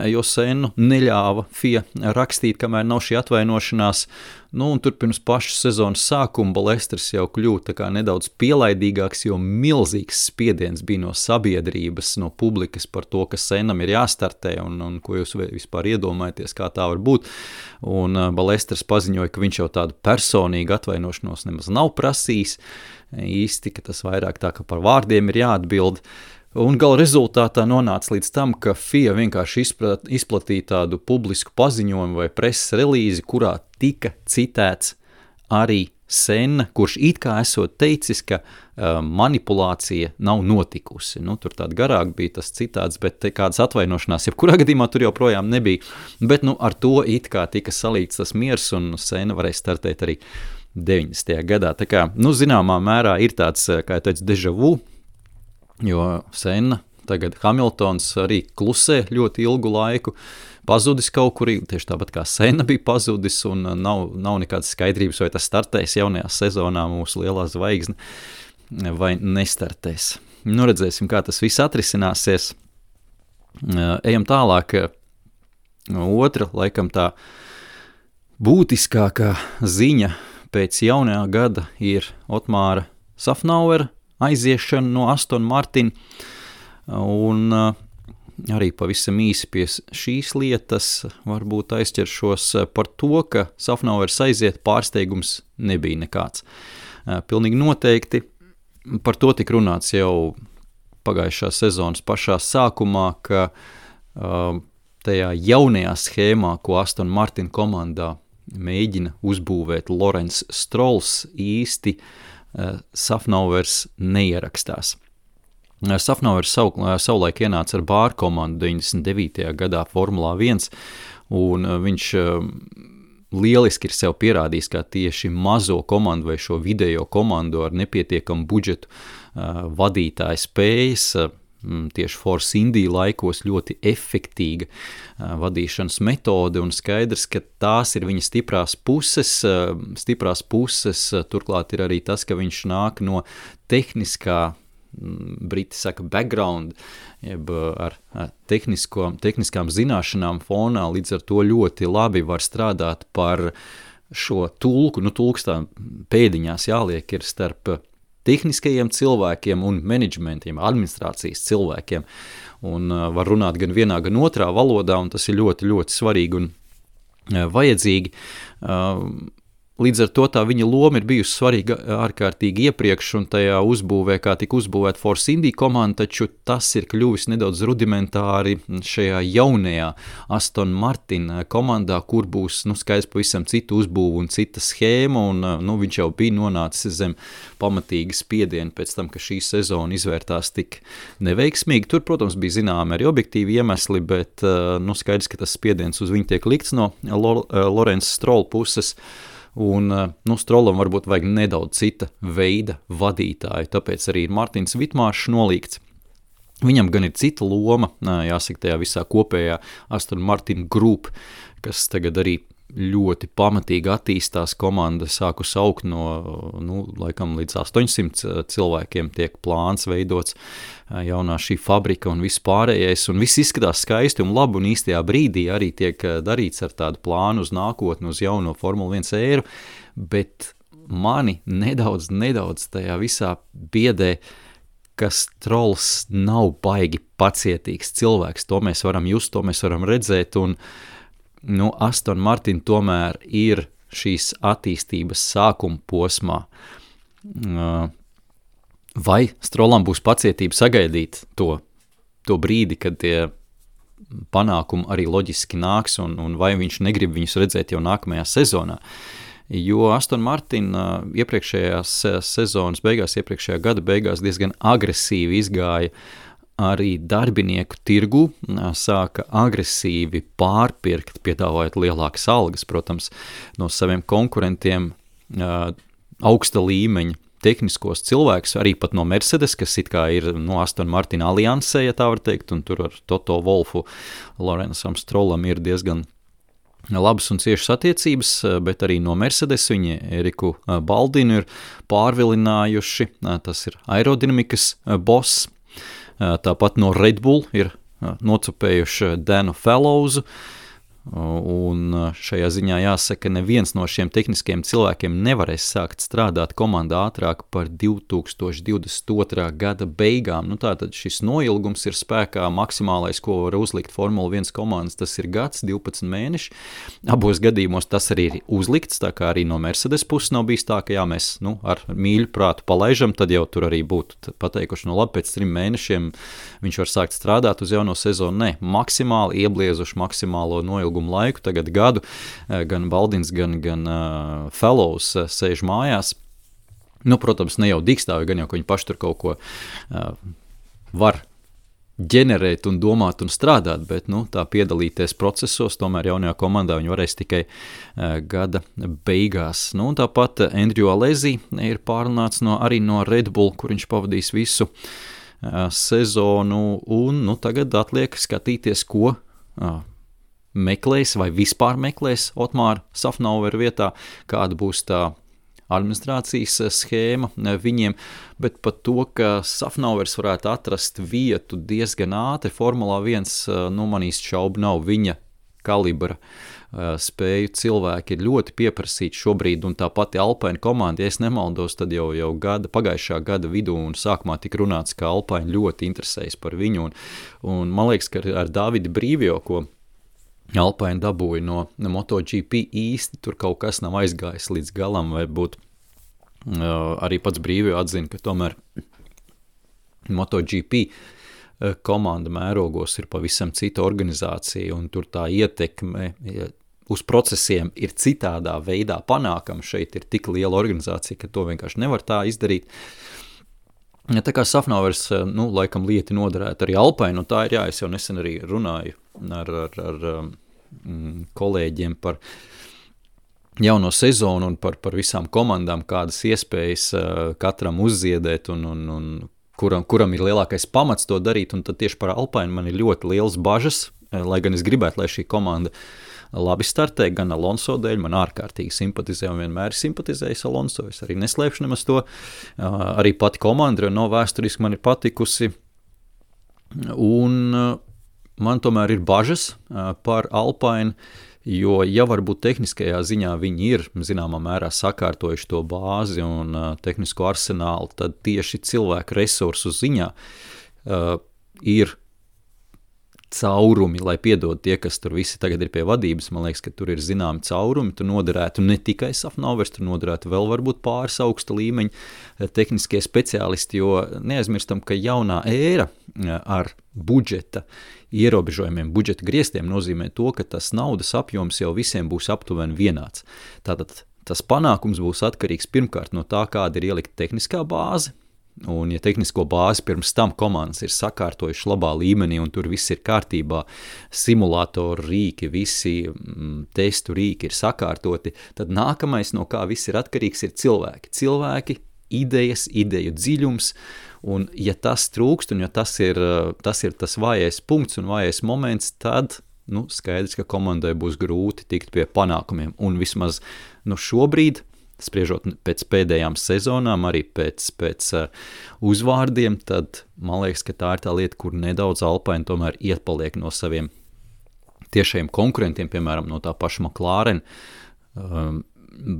jo Sennu neļāva FIA rakstīt, kamēr nav šī atvainošanās. Un tur pirms pašas sezonas sākuma Balesters jau kļūta tā kā nedaudz pielaidīgāks, jo milzīgs spiediens bija no sabiedrības, no publikas par to, ka Sennam ir jāstartē un ko jūs vispār iedomājaties, kā tā var būt. Un Balesters paziņoja, ka viņš jau tādu personīgu atvainošanos nemaz nav prasījis. Īsti, ka tas vairāk tā, ka par vārdiem ir jāatbild. Un gala rezultātā nonāca līdz tam, ka FIA vienkārši izplatīja tādu publisku paziņojumu vai preses relīzi, kurā tika citēts arī Senna, kurš it kā esot teicis, ka manipulācija nav notikusi. Tur tāda garāk bija tas citāts, bet kādas atvainošanās, jebkurā gadījumā tur joprojām nebija. Bet ar to it kā tika salīts tas miers, un Senna varēja startēt arī 90. gadā. Tā kā, zināmā mērā ir tāds, kā jau teicu, deja vu, jo Senna, tagad Hamiltons arī klusē ļoti ilgu laiku, pazudis kaut kur, tieši tāpat kā Senna bija pazudis, un nav nekādas skaidrības, vai tas startēs jaunajā sezonā mūsu lielā zvaigzne, vai nestartēs. Redzēsim, kā tas viss atrisināsies. Ejam tālāk. Otra, laikam tā būtiskākā ziņa pēc jaunajā gada ir Otmāra Safnauera aiziešana no Aston Martin, un arī pavisam īsi pie šīs lietas varbūt aizķeršos par to, ka Safnauers aiziet, pārsteigums nebija nekāds. Pilnīgi noteikti par to tika runāts jau pagājušā sezonas pašā sākumā, ka tajā jaunajā schēmā, ko Aston Martin komandā mēģina uzbūvēt Lawrence Strolls, īsti Safnauers neierakstās. Safnauers savulaik ienāca ar Bāru komandu 99. gadā Formulā 1, un viņš lieliski ir sev pierādījis, kā tieši mazo komandu vai šo video komandu ar nepietiekamu budžetu vadītāja spējas, tieši Force India laikos ļoti efektīga vadīšanas metode un skaidrs, ka tās ir viņa stiprās puses, turklāt ir arī tas, ka viņš nāk no tehniskā, briti saka background, jeb ar tehniskām zināšanām fonā, līdz ar to ļoti labi var strādāt par šo tulku, tulks tā pēdiņās jāliek ir starp tehniskajiem cilvēkiem un menedžmentiem, administrācijas cilvēkiem, un var runāt gan vienā, gan otrā valodā, un tas ir ļoti, ļoti svarīgi un vajadzīgi. Līdz ar to tā viņa loma ir bijusi svarīga ārkārtīgi iepriekš, un tajā uzbūvē, kā tika uzbūvēta Force India komanda, taču tas ir kļuvis nedaudz rudimentāri šajā jaunajā Aston Martin komandā, kur būs, skaidrs pavisam citu uzbūvu un cita schēma, un viņš jau bija nonācis zem pamatīga spiediena pēc tam, ka šī sezona izvērtās tik neveiksmīgi. Tur, protams, bija zināmi arī objektīvi iemesli, bet skaidrs, ka tas spiediens uz viņu tiek likts no Lawrence Stroll puses, un Strollam varbūt vajag nedaudz cita veida vadītāju, tāpēc arī ir Martins Vitmāršs nolīgts. Viņam gan ir cita loma, jāsaka, tajā visā kopējā Aston Martin Group, kas tagad arī ļoti pamatīgi attīstās, komanda sākus augt no laikam līdz 800 cilvēkiem tiek plāns veidots jaunā šī fabrika un viss pārējais, un viss izskatās skaisti un labi, un īstajā brīdī arī tiek darīts ar tādu plānu uz nākotni, uz jauno Formula 1 éru, bet mani nedaudz tajā visā biedē, ka Strolls nav baigi pacietīgs cilvēks, to mēs varam just, to mēs varam redzēt, un Aston Martin tomēr ir šīs attīstības sākuma posmā. Vai Strollam būs pacietība sagaidīt to brīdi, kad tie panākumi arī loģiski nāks, un vai viņš negrib viņus redzēt jau nākamajā sezonā? Jo Aston Martin iepriekšējās sezonas beigās, iepriekšējā gada beigās diezgan agresīvi izgāja arī darbinieku tirgu, sāka agresīvi pārpirkt, piedāvājot lielākas algas, protams, no saviem konkurentiem augsta līmeņa tehniskos cilvēkus, arī pat no Mercedes, kas it kā ir Aston Martin aliansē, ja tā var teikt, un tur ar Toto Wolfu, Lawrenceam Strollam ir diezgan labas un ciešas attiecības, bet arī no Mercedes viņi Eriku Baldinu ir pārvilinājuši, tas ir aerodinamikas boss, tāpat no Red Bull ir nocupējuši Danu Fellowsu, un šajā ziņā jāsaka, neviens no šiem tehniskajiem cilvēkiem nevarēs sākt strādāt komandā ātrāk par 2022. Gada beigām. Tātad šis noilgums ir spēkā, maksimālais, ko var uzlikt Formula 1 komandas, tas ir gads, 12 mēneši. Abos gadījumos tas arī ir uzlikts, tā kā arī no Mercedes puses nav bijis tā, ka mēs ar mīļu prātu palaižam, tad jau tur arī būtu pateikuši, labi, pēc 3 mēnešiem viņš var sākt strādāt uz jauno sezonu. Nē, maksimāli iebliezuši maksimālo noilgumu laiku, tagad gadu, gan Baldins, gan Fellows sēž mājās. Protams, ne jau digstāvi, gan jau, ka viņi paši tur kaut ko var ģenerēt un domāt un strādāt, bet tā piedalīties procesos, tomēr jaunajā komandā viņi varēs tikai gada beigās. Tāpat Andrew Alesi ir pārunāts arī no Red Bull, kur viņš pavadīs visu sezonu, un tagad atliek skatīties, ko meklēs vai vispār meklēs Otmāra Safnauera vietā, kāda būs tā administrācijas schēma viņiem, bet pat to, ka Safnauers varētu atrast vietu diezgan ātri Formulā 1, manīs šaubu nav viņa kalibra spēju cilvēki ir ļoti pieprasīti šobrīd, un tā pati Alpine komanda, ja es nemaldos, tad jau pagājušā gada vidū un sākumā tika runāts, ka Alpine ļoti interesējas par viņu, un man liekas, ka ar Davidu Brīvio, ko Alpine dabūja no MotoGP īsti, tur kaut kas nav aizgājis līdz galam, vai būt arī pats Brīvio atzina, ka tomēr MotoGP komanda mērogos ir pavisam cita organizācija, un tur tā ietekme uz procesiem ir citādā veidā panākama. Šeit ir tik liela organizācija, ka to vienkārši nevar tā izdarīt. Tā kā Safnauers, laikam lieti noderētu arī Alpine, un tā ir, es jau nesen arī runāju ar kolēģiem par jauno sezonu un par visām komandām, kādas iespējas katram uzziedēt un kuram ir lielākais pamats to darīt, un tad tieši par Alpine man ir ļoti liels bažas, lai gan es gribētu, lai šī komanda labi startē, gan Alonso dēļ, man ārkārtīgi simpatizē un vienmēr ir simpatizējis Alonso, es arī neslēpšu nemaz to, arī pati komanda no vēsturiski man ir patikusi, un man tomēr ir bažas par Alpine, jo ja varbūt tehniskajā ziņā viņi ir zināmā mērā sakārtojuši to bāzi un tehnisko arsenālu, tad tieši cilvēku resursu ziņā ir caurumi, lai piedod tie, kas tur visi tagad ir pie vadības, man liekas, ka tur ir zināmi caurumi, tur noderētu ne tikai Safnovers, tur noderētu vēl varbūt pāris augsta līmeņa tehniskie speciālisti, jo neaizmirstam, ka jaunā ēra ar budžeta ierobežojumiem, budžeta griestiem nozīmē to, ka tas naudas apjoms jau visiem būs aptuveni vienāds. Tātad tas panākums būs atkarīgs pirmkārt no tā, kāda ir ielikta tehniskā bāze, un ja tehnisko bāzi pirms tam komandas ir sakārtojuši labā līmenī un tur viss ir kārtībā, simulātoru rīki, visi testu rīki ir sakārtoti, tad nākamais, no kā viss ir atkarīgs, ir cilvēki. Cilvēki, idejas, ideju dziļums, un ja tas trūkst, un ja tas ir tas vājais punkts un vājais moments, tad skaidrs, ka komandai būs grūti tikt pie panākumiem, un vismaz šobrīd, spriežot pēc pēdējām sezonām, arī pēc uzvārdiem, tad man liekas, ka tā ir tā lieta, kur nedaudz Alpine tomēr iepaliek no saviem tiešajiem konkurentiem, piemēram, no tā paša McLaren,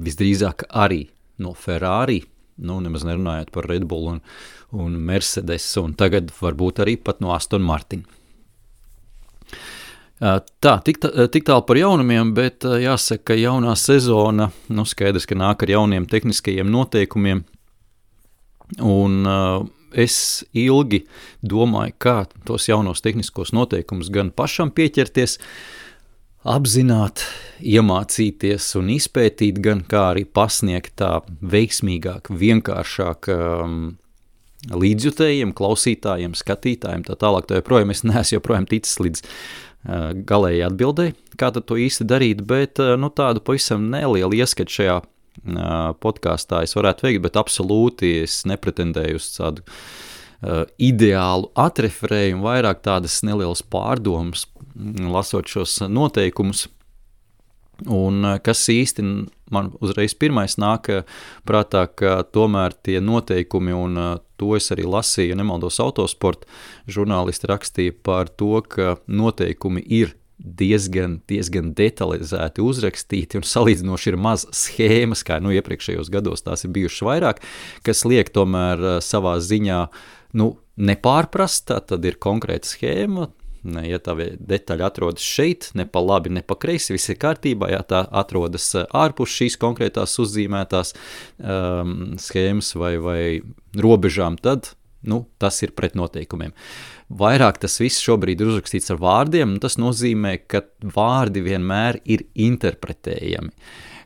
visdrīzāk arī no Ferrari, nemaz nerunājot par Red Bull un Mercedes, un tagad varbūt arī pat no Aston Martin. Tā, tik tālu par jaunumiem, bet jāsaka, ka jaunā sezona, skaidrs, ka nāk ar jauniem tehniskajiem noteikumiem, un es ilgi domāju, kā tos jaunos tehniskos noteikumus gan pašam pieķerties, apzināt, iemācīties un izpētīt, gan kā arī pasniegt tā veiksmīgāk, vienkāršāk līdzjutējiem, klausītājiem, skatītājiem, tā tālāk, tā joprojām es neesmu joprojām ticis līdz galēji atbildēji, kā tad to īsti darīt, bet tādu pavisam nelielu ieskatu šajā podkāstā es varētu veikt, bet absolūti es nepretendēju uz tādu ideālu atreferējumu, vairāk tādas nelielas pārdomas, lasot šos noteikumus, un kas īsti man uzreiz pirmais nāk prātā, ka tomēr tie noteikumi, un to es arī lasīju, ja nemaldos Autosport, žurnālisti rakstīja par to, ka noteikumi ir diezgan detalizēti uzrakstīti un salīdzinoši ir maz schēmas, kā iepriekšējos gados tās ir bijušas vairāk, kas liek tomēr savā ziņā nepārprast, tad ir konkrēta schēma, ja tā detaļa atrodas šeit, ne pa labi, ne pa kreisi, viss ir kārtībā, ja tā atrodas ārpus šīs konkrētās uzzīmētās schēmas vai robežām, tad tas ir pret noteikumiem. Vairāk tas viss šobrīd ir uzrakstīts ar vārdiem, un tas nozīmē, ka vārdi vienmēr ir interpretējami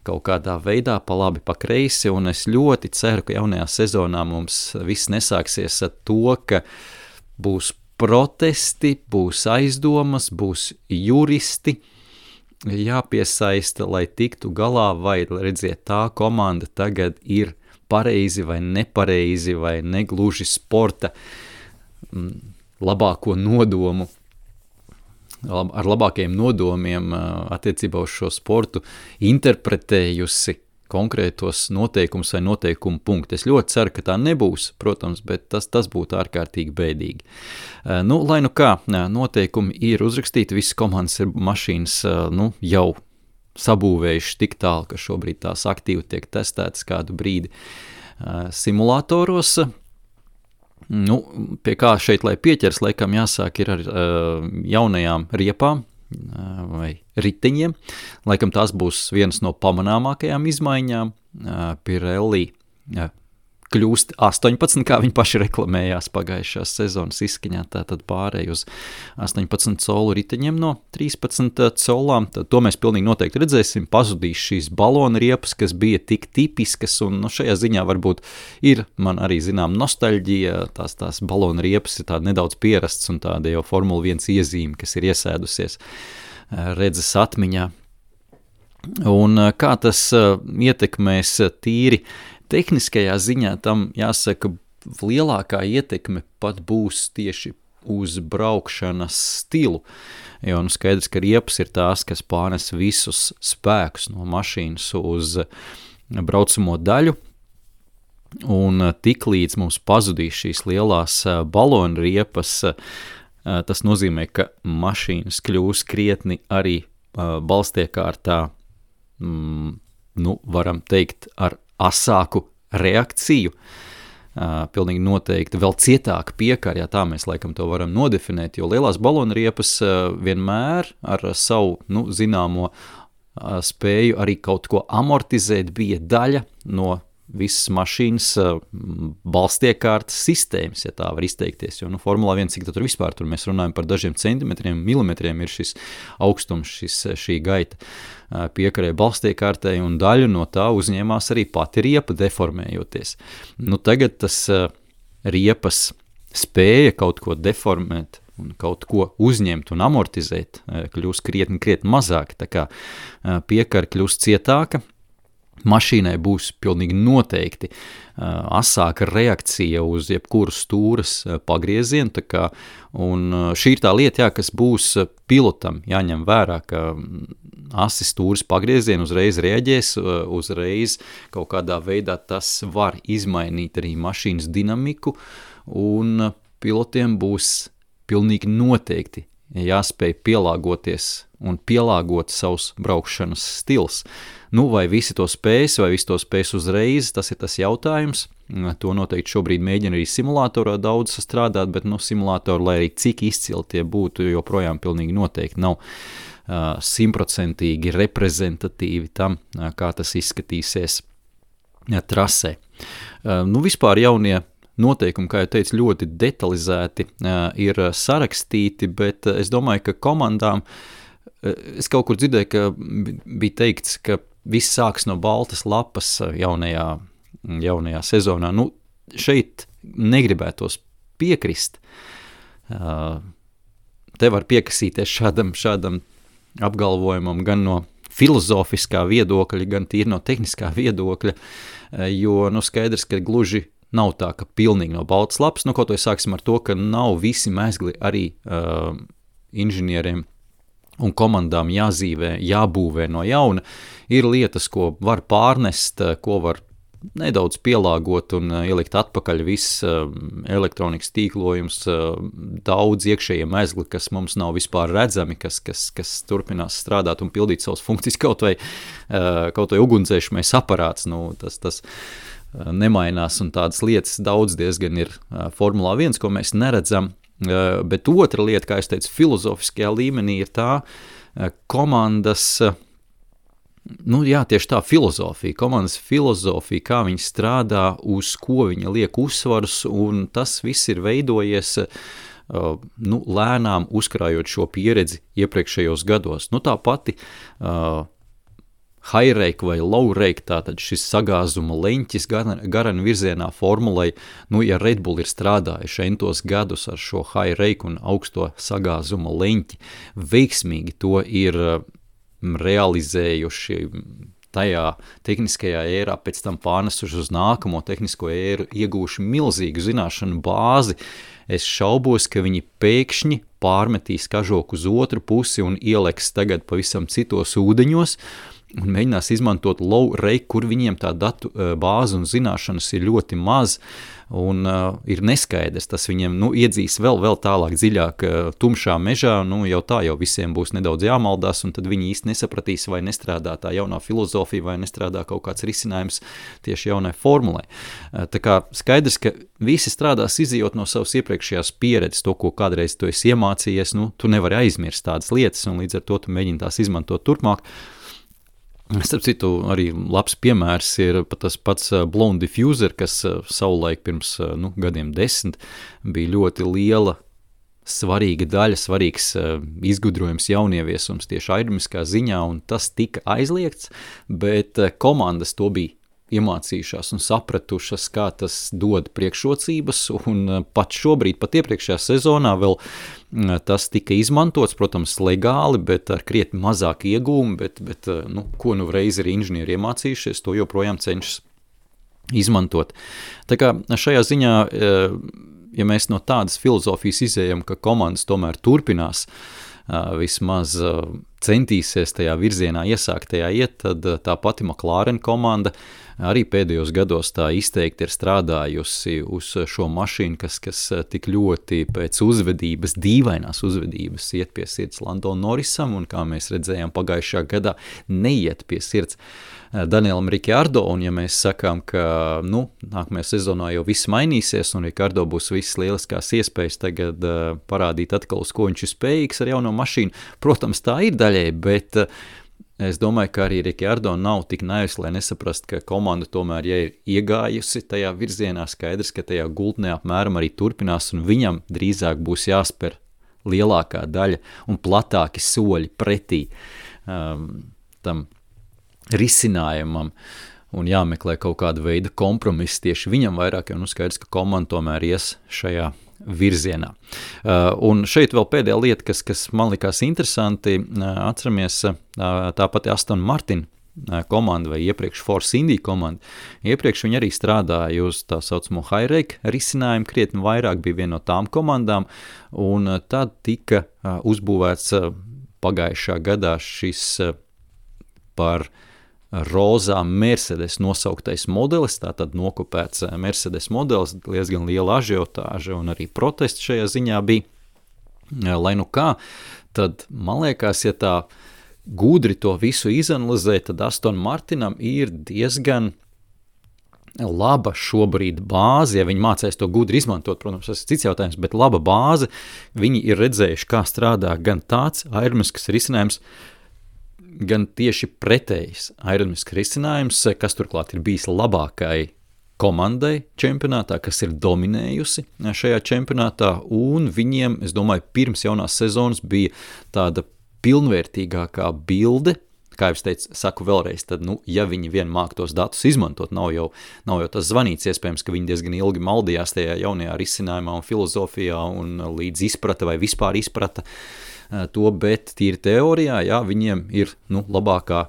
kaut kādā veidā pa labi, pa kreisi, un es ļoti ceru, ka jaunajā sezonā mums viss nesāksies ar to, ka būs protesti, būs aizdomas, būs juristi, jāpiesaista, lai tiktu galā, vai redziet, tā komanda tagad ir pareizi vai nepareizi, vai negluži sporta labāko nodomu, ar labākajiem nodomiem attiecībā uz šo sportu interpretējusi konkrētos noteikumus vai noteikumu punktu. Es ļoti ceru, ka tā nebūs, protams, bet tas būtu ārkārtīgi bēdīgi. Lai kā, noteikumi ir uzrakstīti, visas komandas ir mašīnas jau sabūvējuši tik tālu, ka šobrīd tās aktīvi tiek testētas kādu brīdi simulātoros. Pie kā šeit, lai pieķers, laikam jāsāk ir ar jaunajām riepām, vai riteņiem. Laikam tās būs vienas no pamanāmākajām izmaiņām. Pirelli kļūst 18, kā viņi paši reklamējās pagājušās sezonas izskaņā, tātad pārēj uz 18 colu riteņiem no 13 colām. Tad to mēs pilnīgi noteikti redzēsim, pazudīs šīs balona riepas, kas bija tik tipiskas, un šajā ziņā varbūt ir man arī zinām nostalģija, tās balona riepas ir tāda nedaudz pierasts un tāda jau Formula 1 iezīme, kas ir iesēdusies redzes atmiņā. Un kā tas ietekmēs tīri tehniskajā ziņā, tam jāsaka, lielākā ietekme pat būs tieši uz braukšanas stilu. Jo skaidrs, ka riepas ir tās, kas pārnes visus spēkus no mašīnas uz braucamo daļu, un tiklīdz mums pazudīs šīs lielās balonu riepas, tas nozīmē, ka mašīnas kļūs krietni arī balstiekārtā, varam teikt, ar asāku reakciju, pilnīgi noteikti vēl cietāka piekara, tā mēs laikam to varam nodefinēt, jo lielās balonu riepas vienmēr ar savu, zināmo spēju arī kaut ko amortizēt bija daļa no visas mašīnas balstiekārtas sistēmas, ja tā var izteikties, jo Formulā 1, cik tur vispār tur mēs runājam par dažiem centimetriem, milimetriem ir šis augstums, šī gaita piekarē balstiekārtai, un daļu no tā uzņēmās arī pati riepa deformējoties. Tagad tas riepas spēja kaut ko deformēt un kaut ko uzņemt un amortizēt, kļūst krietni mazāk, tā kā piekara kļūst cietāka, mašīnai būs pilnīgi noteikti asāka reakcija uz jebkuru stūras pagriezienu, un šī ir tā lieta, kas būs pilotam jāņem vērā, ka asi stūras pagriezienu uzreiz reaģēs, uzreiz kaut kādā veidā tas var izmainīt arī mašīnas dinamiku, un pilotiem būs pilnīgi noteikti jāspēj pielāgoties un pielāgot savus braukšanas stils. Vai visi to spēs, vai visi to spēs uzreiz, tas ir tas jautājums. To noteikti šobrīd mēģina arī simulatorā daudz strādāt, bet simulatori, lai arī cik izcili tie būtu, joprojām pilnīgi noteikti nav 100% reprezentatīvi tam, kā tas izskatīsies trasē. Vispār jaunie noteikumi, kā jau teicu, ļoti detalizēti ir sarakstīti, bet es domāju, ka komandām, es kaut kur dzirdēju, ka bija teikts, ka viss sāks no baltas lapas jaunajā sezonā. Šeit negribētos piekrist. Te var piekasīties šādam apgalvojumam gan no filozofiskā viedokļa, gan tīri no tehniskā viedokļa, jo skaidrs, ka gluži nav tā, ka pilnīgi no baltas lapas, kaut vai sāksim ar to, ka nav visi mezgli arī inženieriem un komandām jāzīvē, jābūvē no jauna. Ir lietas, ko var pārnest, ko var nedaudz pielāgot un ielikt atpakaļ viss elektronikas tīklojums, daudz iekšējie mezgli, kas mums nav vispār redzami, kas turpinās strādāt un pildīt savas funkcijas, kaut vai ugunsdzēšamais aparāts, tas nemainās, un tādas lietas daudz diezgan ir Formulā 1, ko mēs neredzam. Bet otra lieta, kā es teicu, filozofiskajā līmenī ir tā komandas, tieši tā filozofija, komandas filozofija, kā viņi strādā, uz ko viņi liek uzsvarus, un tas viss ir veidojies lēnām uzkrājot šo pieredzi iepriekšējos gados. Tā pati high rake vai low rake, tātad šis sagāzuma leņķis garana virzienā formulai, ja Red Bull ir strādājuši entos gadus ar šo high rake un augsto sagāzuma leņķi, veiksmīgi to ir realizējuši tajā tehniskajā ērā, pēc tam pārnesuši uz nākamo tehnisko ēru, iegūši milzīgu zināšanu bāzi. Es šaubos, ka viņi pēkšņi pārmetīs kažoku uz otru pusi un ieliks tagad pavisam citos ūdeņos, un mēģinās izmantot low rake, kur viņiem tā datu bāze un zināšanas ir ļoti maz, un ir neskaidrs, tas viņiem iedzīs vēl tālāk dziļāk tumšā mežā, jau visiem būs nedaudz jāmaldās, un tad viņi īsti nesapratīs, vai nestrādā tā jaunā filozofija, vai nestrādā kaut kāds risinājums tieši jaunai formulai. Tā kā skaidrs, ka visi strādās izejot no savas iepriekšējās pieredzes, to, ko kādreiz tu esi iemācījies, tu nevari aizmirst tādas lietas, un līdz ar to tu mēģini tās izmantot turpmāk. Starp citu, arī labs piemērs ir tas pats Blown Diffuser, kas savulaik pirms gadiem 10 bija ļoti liela, svarīga daļa, svarīgs izgudrojums, jaunieviesums tieši aerodinamiskā ziņā, un tas tika aizliegts, bet komandas to bija iemācījušās un sapratušas, kā tas dod priekšrocības, un pat šobrīd, pat iepriekšējā sezonā vēl tas tika izmantots, protams, legāli, bet ar krietni mazāk iegūmu, bet ko reiz ir inženieri iemācījušies, to joprojām cenšas izmantot. Tā kā šajā ziņā, ja mēs no tādas filozofijas izējam, ka komandas tomēr turpinās vismaz centīsies tajā virzienā iesāktajā iet, tad tā pati McLaren komanda arī pēdējos gados tā izteikti ir strādājusi uz šo mašīnu, kas tik ļoti pēc uzvedības, dīvainās uzvedības iet pie sirds Landon Norrisam, un kā mēs redzējām pagājušajā gadā, neiet pie sirds Danielam Ricciardo, un ja mēs sakām, ka nākamajā sezonā jau viss mainīsies, un Ricciardo būs visas lieliskās iespējas tagad parādīt atkal, uz ko viņš ir spējīgs ar jauno mašīnu, protams, tā ir daļai, bet es domāju, ka arī Ricciardo nav tik naivs, lai nesaprast, ka komanda tomēr, ja ir iegājusi tajā virzienā, skaidrs, ka tajā gultnē apmēram arī turpinās, un viņam drīzāk būs jāspēr lielākā daļa un platāki soļi pretī tam risinājumam un jāmeklē kaut kāda veida kompromiss tieši viņam vairāk, jo skaidrs, ka komanda tomēr ies šajā virzienā. Un šeit vēl pēdējā lieta, kas man likās interesanti, atceramies tāpat Aston Martin komanda vai iepriekš Force India komanda. Iepriekš viņi arī strādāja uz tā saucamo high-rake risinājumu, krietni vairāk bija viena no tām komandām, un tad tika uzbūvēts pagājušā gadā šis par rozā Mercedes nosauktais modelis, tātad nokopēts Mercedes modelis, diezgan liela ažiotāža un arī protests šajā ziņā bija. Lai kā, tad man liekas, ja tā gudri to visu izanalizē, tad Aston Martinam ir diezgan laba šobrīd bāze, ja viņi mācēs to gudri izmantot, protams, tas ir cits jautājums, bet laba bāze, viņi ir redzējuši, kā strādā gan tāds aerodinamisks risinājums, gan tieši pretējs aerodinamisks risinājums, kas turklāt ir bijis labākai komandai čempionātā, kas ir dominējusi šajā čempionātā, un viņiem, es domāju, pirms jaunās sezonas bija tāda pilnvērtīgākā bilde, kā jau es teicu, saku vēlreiz, tad, ja viņi vien māk tos datus izmantot, nav jau tas zvanīts, iespējams, ka viņi diezgan ilgi maldījās tajā jaunajā risinājumā un filozofijā un līdz izprata vai vispār izprata to, bet tīri teorijā, jā, viņiem ir labākā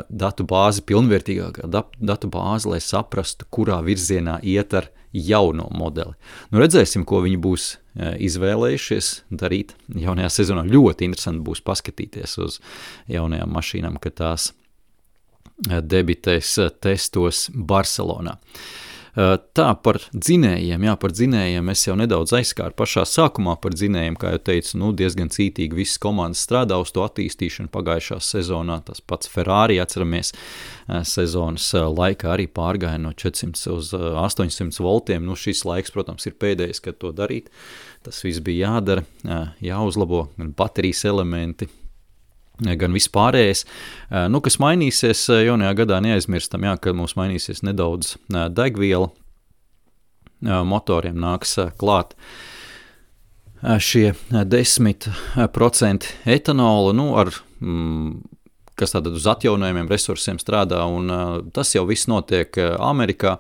datu bāze, pilnvērtīgākā datu bāze, lai saprastu, kurā virzienā iet ar jauno modeli. Redzēsim, ko viņi būs izvēlējušies darīt jaunajā sezonā. Ļoti interesanti būs paskatīties uz jaunajām mašīnām, kad tās debitēs testos Barcelonā. Tā par dzinējiem es jau nedaudz aizskāru pašā sākumā par dzinējiem, kā jau teicu, diezgan cītīgi visas komandas strādā uz to attīstīšanu pagājušā sezonā, tas pats Ferrari, atceramies, sezonas laikā arī pārgāja no 400 uz 800 voltiem, šis laiks, protams, ir pēdējais, kad to darīt, tas viss bija jādara, jāuzlabo baterijas elementi, gan vispārējais. Kas mainīsies jaunajā gadā, neaizmirstam, ka mums mainīsies nedaudz degviela, motoriem nāks klāt šie 10% etanola, kas tātad uz atjaunojumiem resursiem strādā, un tas jau viss notiek Amerikā.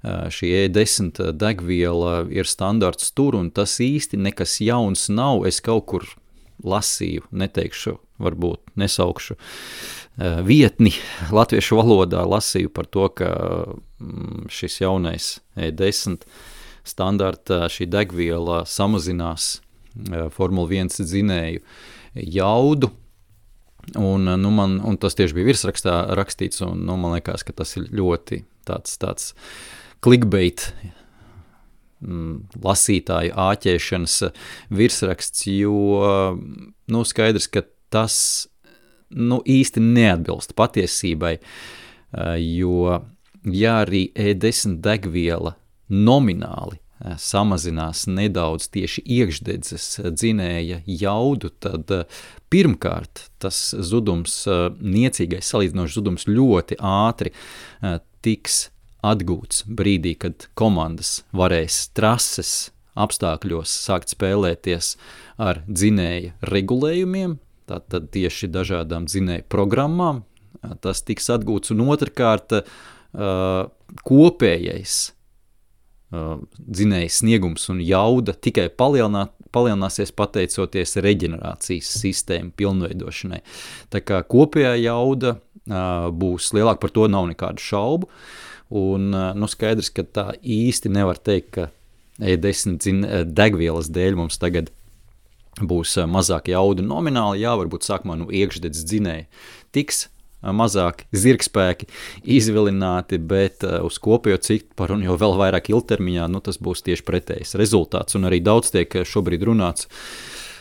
Šī E10 degviela ir standarts tur, un tas īsti nekas jauns nav. Es kaut kur lasīju, neteikšu, varbūt nesaukšu vietni latviešu valodā, lasīju par to, ka šis jaunais E10 standarta šī degviela samazinās Formula 1 dzinēju jaudu, un tas tieši bija virsrakstā rakstīts, un man liekas, ka tas ir ļoti tāds clickbait lasītāju āķēšanas virsraksts, jo skaidrs, ka tas īsti neatbilst patiesībai, jo ja arī E10 degviela nomināli samazinās nedaudz tieši iekšdedzes dzinēja jaudu, tad pirmkārt tas zudums, niecīgais salīdzinošs zudums ļoti ātri tiks atgūts brīdī, kad komandas varēs trases apstākļos sākt spēlēties ar dzinēja regulējumiem, tātad tieši dažādām dzinēja programmām, tas tiks atgūts, un otrkārt kopējais dzinēja sniegums un jauda tikai palielināsies pateicoties reģenerācijas sistēmu pilnveidošanai. Tā kā kopējā jauda būs lielāka, par to nav nekādu šaubu, un skaidrs, ka tā īsti nevar teikt, ka E10 degvielas dēļ mums tagad būs mazāk jauda nomināli, varbūt sākumā iekšdedz dzinēja tiks mazāk zirgspēki izvilināti, bet uz kopējo ciparu un jau vēl vairāk ilgtermiņā, tas būs tieši pretējs rezultāts. Un arī daudz tiek šobrīd runāts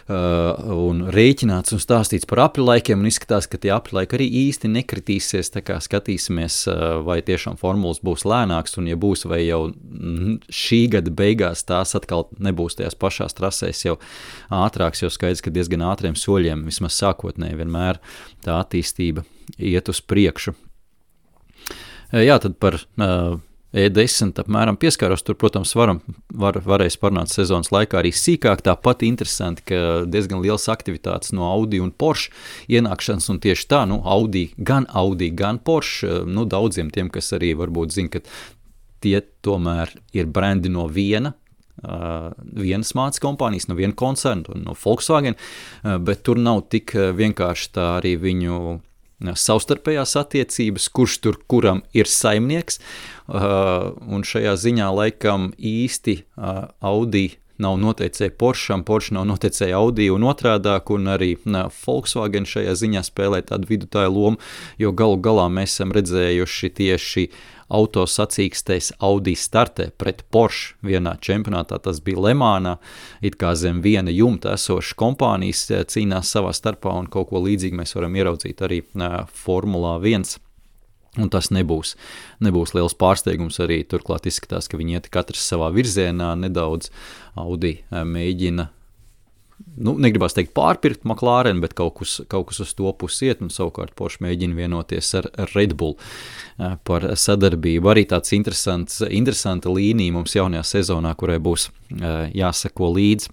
un rēķināts un stāstīts par apļlaikiem, un izskatās, ka tie apļlaiki arī īsti nekritīsies, tā kā skatīsimies, vai tiešām formulas būs lēnāks, un ja būs, vai jau šī gada beigās tās atkal nebūs tajās pašās trasēs jau ātrāks, jo skaidrs, ka diezgan ātriem soļiem, vismaz sākotnēji vienmēr tā attīstība iet uz priekšu. Jā, tad par E10 apmēram pieskāros, tur, protams, varēs parunāt sezonas laikā arī sīkāk, tāpat interesanti, ka diezgan liels aktivitātes no Audi un Porsche ienākšanas, un tieši tā, Audi, gan Porsche, daudziem tiem, kas arī varbūt zina, ka tie tomēr ir brendi no vienas mācas kompānijas, no viena koncerna, no Volkswagen, bet tur nav tik vienkārši tā arī viņu savstarpējās attiecības, kurš tur kuram ir saimnieks, un šajā ziņā laikam īsti Audi nav noteicēja Porscham, Porsche nav noteicēja Audi un otrādāk, un arī Volkswagen šajā ziņā spēlē tādu vidutāju lomu, jo galu galā mēs esam redzējuši tieši autosacīkstēs Audi startē pret Porsche vienā čempionātā, tas bija Lemānā, it kā zem viena jumta esošas kompānijas cīnās savā starpā, un kaut ko līdzīgi mēs varam ieraudzīt arī Formulā 1, un tas nebūs liels pārsteigums arī, turklāt izskatās, ka viņi iet katrs savā virzienā, nedaudz Audi mēģina, negribās teikt pārpirkt McLaren, bet kaut kas uz to pusi iet, un savukārt Porsche mēģina vienoties ar Red Bull par sadarbību. Arī tāds interesanta līnija mums jaunajā sezonā, kurai būs jāseko līdzi.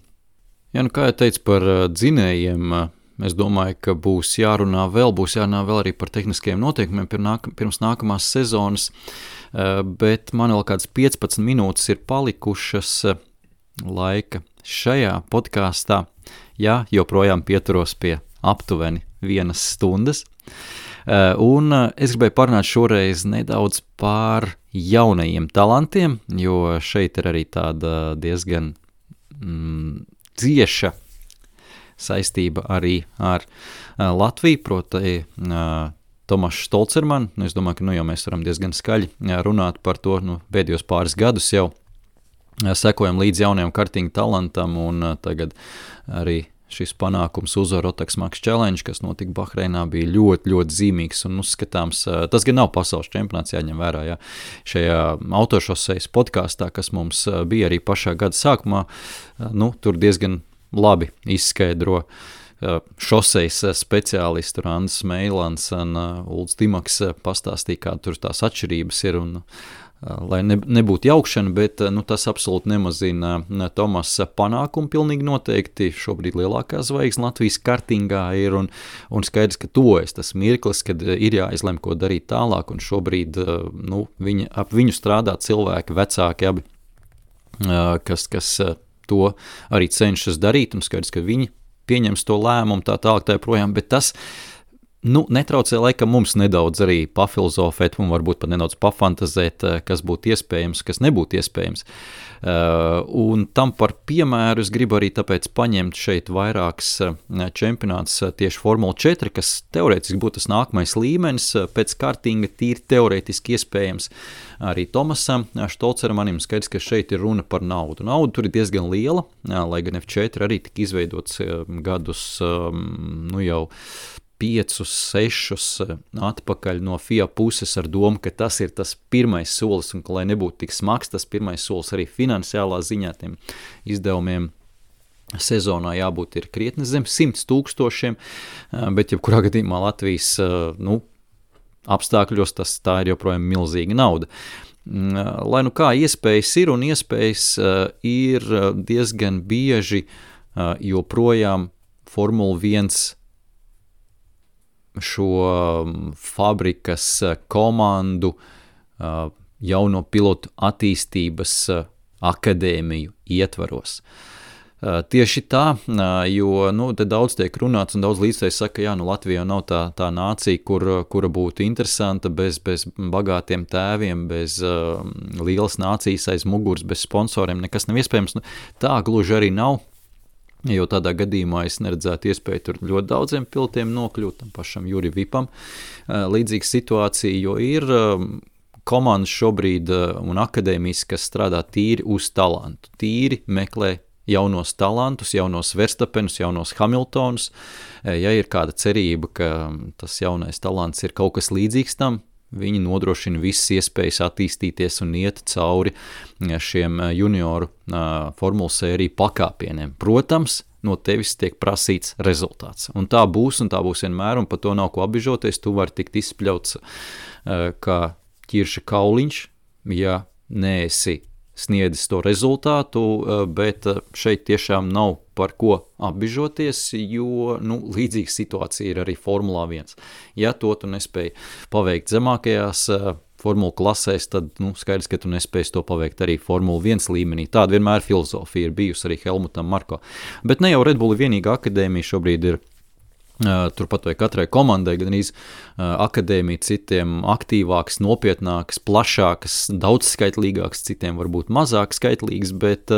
Ja, kā jau teicu par dzinējiem, es domāju, ka būs jārunā vēl arī par tehniskajiem noteikumiem pirms nākamās sezonas, bet man vēl kāds 15 minūtes ir palikušas laika šajā podkāstā, joprojām pieturos pie aptuveni 1 stundas, un es gribēju parunāt šoreiz nedaudz par jaunajiem talantiem, jo šeit ir arī tāda diezgan cieša saistība arī ar Latviju, proti Tomašs Stolcerman. Es domāju, ka jau mēs varam diezgan skaļi runāt par to pēdējos pāris gadus jau. Sekojam līdz jaunajam kartinga talantam, un tagad arī šis panākums uzvaru Rotax Max Challenge, kas notika Bahreinā, bija ļoti, ļoti zīmīgs un uzskatāms. Tas gan nav pasaules čempionāts, jāņem vērā, šajā autošosejas podkāstā, kas mums bija arī pašā gada sākumā, tur diezgan labi izskaidro šosejas speciālisti Randis Meilans un Ulds Dimaks pastāstīja, kā tur tās atšķirības ir, un lai nebūtu jaukšana, bet tas absolūti nemazina Tomasa panākumu pilnīgi noteikti. Šobrīd lielākā zvaigzne Latvijas kartingā ir, un skaidrs, ka tojas tas mirklis, kad ir jāizlem, ko darīt tālāk, un šobrīd ap viņu strādā cilvēki, vecāki abi, kas to arī cenšas darīt, un skaidrs, ka viņi pieņems to lēmumu tā tālāk tā projām, bet tas netraucē laikam mums nedaudz arī pafilozofēt un varbūt pat nedaudz pafantazēt, kas būtu iespējams, kas nebūtu iespējams. Un tam par piemēru es gribu arī tāpēc paņemt šeit vairāks čempionāts tieši Formula 4, kas teorētiski būtu tas nākamais līmenis, pēc kartinga tīri teorētiski iespējams arī Tomasam Stolcermanim. Skaidrs, ka šeit ir runa par naudu. Nauda tur ir diezgan liela, lai gan F4 arī tika izveidots gadus jau 5, 6 atpakaļ no FIA puses ar domu, ka tas ir tas pirmais solis, un ka, lai nebūtu tik smags, tas pirmais solis arī finansiālā ziņā tiem izdevumiem sezonā jābūt ir krietni zem 100 000, bet jebkurā gadījumā Latvijas apstākļos tā ir joprojām milzīga nauda. Lai kā iespējas ir, un iespējas ir diezgan bieži joprojām Formula 1 šo fabrikas komandu jauno pilotu attīstības akadēmiju ietvaros. Tieši tā, jo te daudz tiek runāts un daudz līdzēji saka, Latvija nav tā nācija, kura būtu interesanta bez bagātiem tēviem, bez lielas nācijas aiz muguras, bez sponsoriem, nekas nav iespējams. Tā gluži arī nav, jo tādā gadījumā es neredzētu iespēju tur ļoti daudziem pilotiem nokļūt, tam pašam Juri Vipam. Līdzīga situācija, jo ir komandas šobrīd un akadēmijas, kas strādā tīri uz talantu, tīri meklē jaunos talantus, jaunos Verstapenus, jaunos Hamiltonus. Ja ir kāda cerība, ka tas jaunais talants ir kaut kas līdzīgs tam, viņi nodrošina visas iespējas attīstīties un iet cauri šiem junioru formulu sēriju pakāpieniem. Protams, no tevis tiek prasīts rezultāts. Un tā būs vienmēr, un par to nav ko apbižoties. Tu vari tikt izspļauts kā ķirša kauliņš, ja neesi sniedzis to rezultātu, bet šeit tiešām nav par ko apbižoties, jo līdzīga situācija ir arī Formulā 1. Ja to tu nespēji paveikt zemākajās formulu klasēs, tad skaidrs, ka tu nespēji to paveikt arī Formula 1 līmenī. Tāda vienmēr filozofija ir bijusi arī Helmutam Marko. Bet ne jau Red Bull vienīga akadēmija šobrīd ir. Turpat vai katrai komandai gan akadēmija, citiem aktīvāks, nopietnāks, plašāks, daudzskaitlīgāks, citiem varbūt mazāk skaitlīgs, bet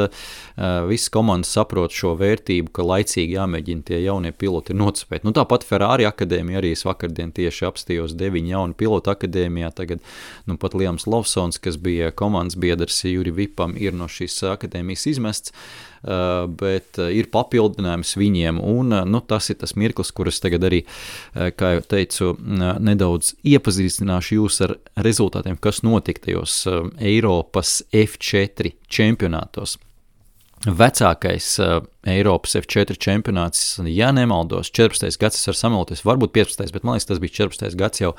visas komandas saprot šo vērtību, ka laicīgi jāmēģina tie jaunie piloti nocipēt. Tāpat Ferrari akadēmija arī es vakardien tieši apstījos 9 jaunu pilotu akadēmijā, tagad pat Liams Lawsons, kas bija komandas biedrs Juri Vipam, ir no šīs akadēmijas izmests, bet ir papildinājums viņiem, un tas ir tas mirklis, kuras tagad arī, kā jau teicu, nedaudz iepazīstināšu jūs ar rezultātiem, kas notika tajos Eiropas F4 čempionātos. Vecākais Eiropas F4 čempionāts, ja nemaldos, 14. gads, es varu samaloties, varbūt 15. bet man liekas, tas bija 14. gads jau,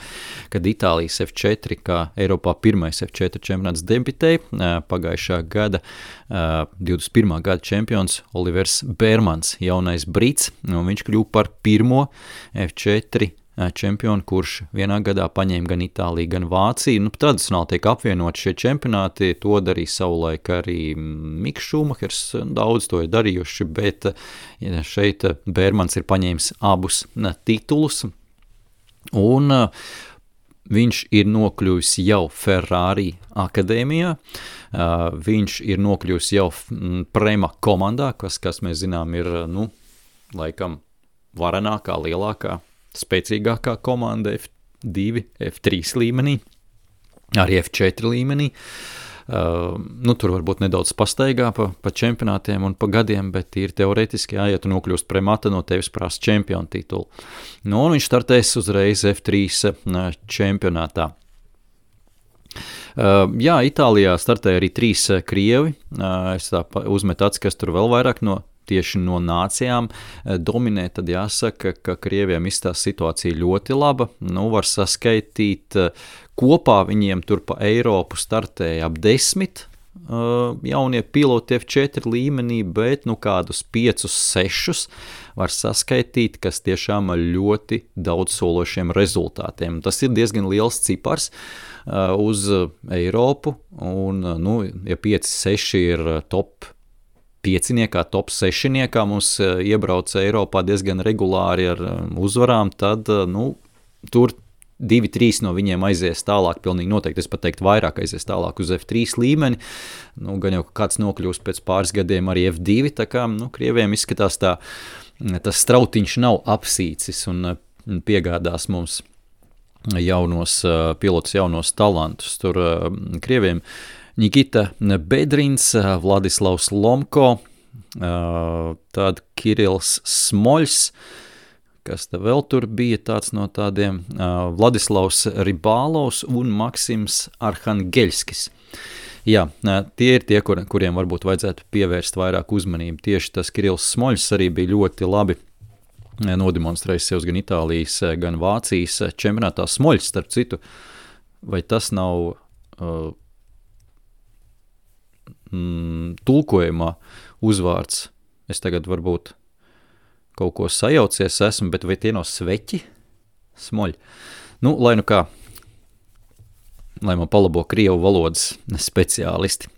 kad Itālijas F4, kā Eiropā pirmais F4 čempionāts debitēja, pagājušā gada 21. gada čempions Olivers Bērmans, jaunais brits, un viņš kļuva par pirmo F4 čempionu, kurš vienā gadā paņēma gan Itāliju, gan Vāciju. Tradicionāli tiek apvienoti šie čempionāti, to darīja savulaik arī Miks Šumahers, daudz to ir darījuši, bet šeit Bērmans ir paņēmis abus titulus, un viņš ir nokļuvis jau Ferrari akadēmijā, viņš ir nokļuvis jau Prema komandā, kas mēs zinām ir, laikam varenākā, lielākā, spēcīgākā komanda F2, F3 līmenī, arī F4 līmenī. Tur varbūt nedaudz pastaigā pa čempionātiem un pa gadiem, bet ir teoretiski, ja tu nokļūst Premata, no tevis prasa čempionu titulu. Un viņš startēs uzreiz F3 čempionātā. Itālijā startēja arī 3 krievi. Es tā uzmetu acis, kas tur vēl vairāk tieši no nācijām dominē, tad jāsaka, ka Krieviem izstās situācija ļoti laba. Var saskaitīt, kopā viņiem tur pa Eiropu startēja ap 10 jaunie piloti F4 līmenī, bet kādus 5-6 var saskaitīt, kas tiešām ar ļoti daudz sološiem rezultātiem. Tas ir diezgan liels cipars uz Eiropu, un ja 5-6 ir top 5-niekā, top 6-niekā mums iebrauc Eiropā diezgan regulāri ar uzvarām, tad tur 2-3 no viņiem aizies tālāk, pilnīgi noteikti, es pat teiktu vairāk aizies tālāk uz F3 līmeni, gan jau kāds nokļūst pēc pāris gadiem arī F2, tā kā, Krieviem izskatās tas strautiņš nav apsīcis un piegādās mums jaunos pilotus, jaunos talantus. Tur Krieviem Nikita Bedrins, Vladislavs Lomko, tad Kirils Smoļs, kas te vēl tur bija tāds no tādiem, Vladislavs Ribālovs un Maksims Arhangeļskis. Jā, tie ir tie, kuriem varbūt vajadzētu pievērst vairāk uzmanību. Tieši tas Kirils Smoļs arī bija ļoti labi nodemonstrējis sev gan Itālijas, gan Vācijas čempionātā. Smoļs, starp citu, vai tas nav tulkojumā uzvārds? Es tagad varbūt kaut ko sajaucies esmu, bet vai tie nav sveķi? Smoļi. Lai kā. lai man palabo krievu valodas speciālisti.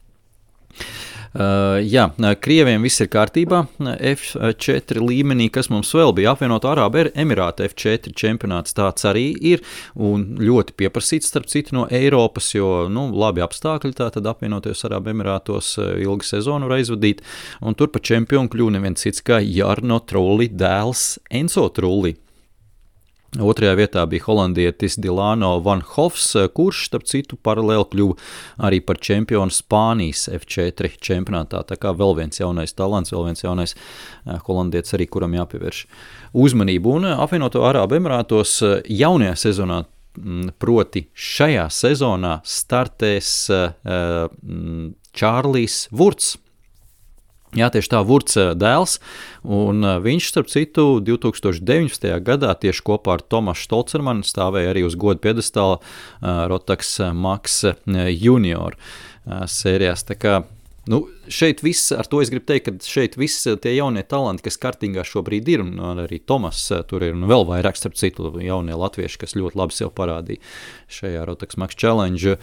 Jā, Krieviem viss ir kārtībā, F4 līmenī, kas mums vēl bija apvienoto Arābu Emirātu F4 čempionāts, tāds arī ir, un ļoti pieprasīts starp citu no Eiropas, jo, labi apstākļi tātad apvienotajos Arābu Emirātos ilgu sezonu var aizvadīt, un tur pa čempionu kļuva neviens cits kā Jarno Trulli dēls Enzo Trulli. Otrajā vietā bija holandietis Dilano Van Hofs, kurš, starp citu, paralēli kļuva arī par čempionu Spānijas F4 čempionātā. Tā kā vēl viens jaunais talants, vēl viens jaunais holandietis arī, kuram jāpievērš uzmanību. Un apvienoto Arābu Emirātos jaunajā sezonā, proti šajā sezonā, startēs Čārlijs Vurts. Jā, tieši tā, Vurts dēls, un viņš, starp citu, 2019. gadā tieši kopā ar Tomašu Stolcermanu stāvēja arī uz godu piedestāla Rotax Max Junior sērijās. Tā kā, šeit viss, ar to es gribu teikt, ka šeit viss tie jaunie talanti, kas kartingā šobrīd ir, un arī Tomas tur ir, un vēl vairāk, starp citu, jaunie latvieši, kas ļoti labi sev parādīja šajā Rotax Max Challenge,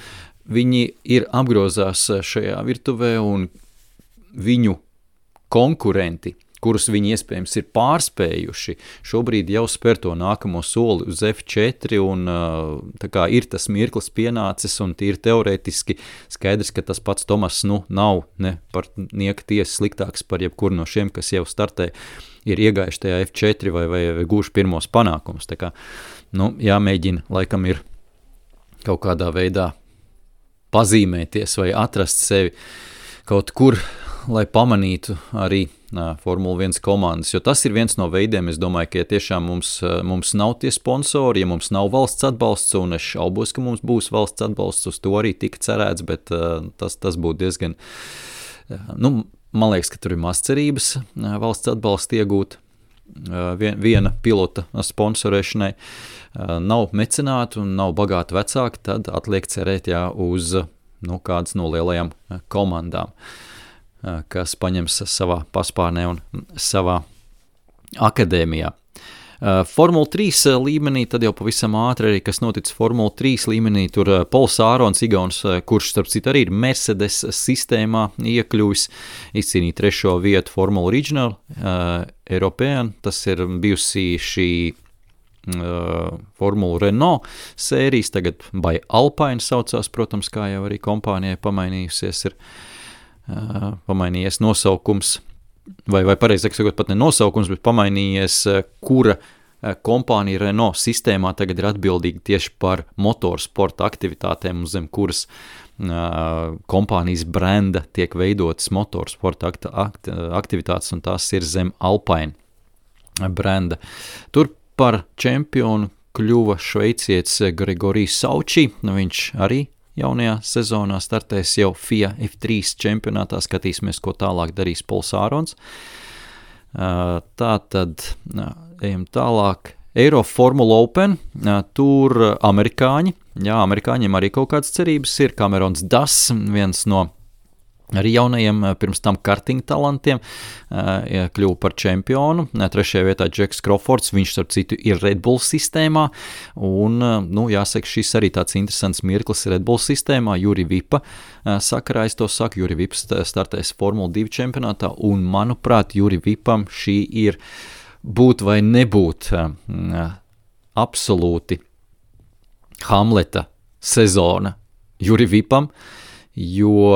viņi ir apgrozās šajā virtuvē, un viņu konkurenti, kurus viņi iespējams ir pārspējuši, šobrīd jau spēr to nākamo soli uz F4, un tā kā ir tas mirklis pienācis, un tīri teorētiski skaidrs, ka tas pats Tomas nav ne par nieka tiesa sliktāks par jebkuru no šiem, kas jau startē, ir iegājuši tajā F4 vai gūši pirmos panākumus. Tā kā, jāmēģina, laikam ir kaut kādā veidā pazīmēties vai atrast sevi kaut kur, lai pamanītu arī Formula 1 komandas, jo tas ir viens no veidiem, es domāju, ka ja tiešām mums nav tie sponsori, ja mums nav valsts atbalsts, un es šaubos, ka mums būs valsts atbalsts, uz to arī tika cerēts, bet tas būtu diezgan, man liekas, ka tur ir maz cerības valsts atbalstu iegūt viena pilota sponsorēšanai, nav mecenātu un nav bagāti vecāki, tad atliek cerēt uz kādas no lielajām komandām, kas paņems savā paspārnē un savā akadēmijā. Formula 3 līmenī, tad jau pavisam ātri arī, kas notic Formula 3 līmenī, tur Pols Ārons, Igauns, kurš starp citu arī ir Mercedes sistēmā iekļuvis, izcīnīja 3. vietu Formula Regional European, tas ir bijusi šī Formula Renault sērijas, tagad by Alpine saucās, protams, kā jau arī kompānijai pamainījies nosaukums, vai pareizāk sakot, pat ne nosaukums, bet pamainījies, kura kompānija Renault sistēmā tagad ir atbildīga tieši par motorsporta aktivitātēm, un zem kuras kompānijas brenda tiek veidotas motorsporta aktivitātes, un tās ir zem Alpine brenda. Tur par čempionu kļuva šveicietis Gregorijs Sauči, viņš arī jaunajā sezonā startēs jau FIA F3 čempionātā, skatīsimies, ko tālāk darīs Pols Ārons. Tātad ejam tālāk. Eiro Formula Open, tur amerikāņiem arī kaut kādas cerības ir. Camerons Das, viens no arī jaunajiem pirms tam karting talantiem, kļuva par čempionu. 3. vietā Džeks Crawfords, viņš starp citu ir Red Bull sistēmā, un, jāsaka, šis arī tāds interesants mirklis Red Bull sistēmā. Juri Vipa sakarā, es to saku, Juri Vips startēs Formula 2 čempionātā, un, manuprāt, Juri Vipam šī ir būt vai nebūt absolūti Hamleta sezona Juri Vipam, jo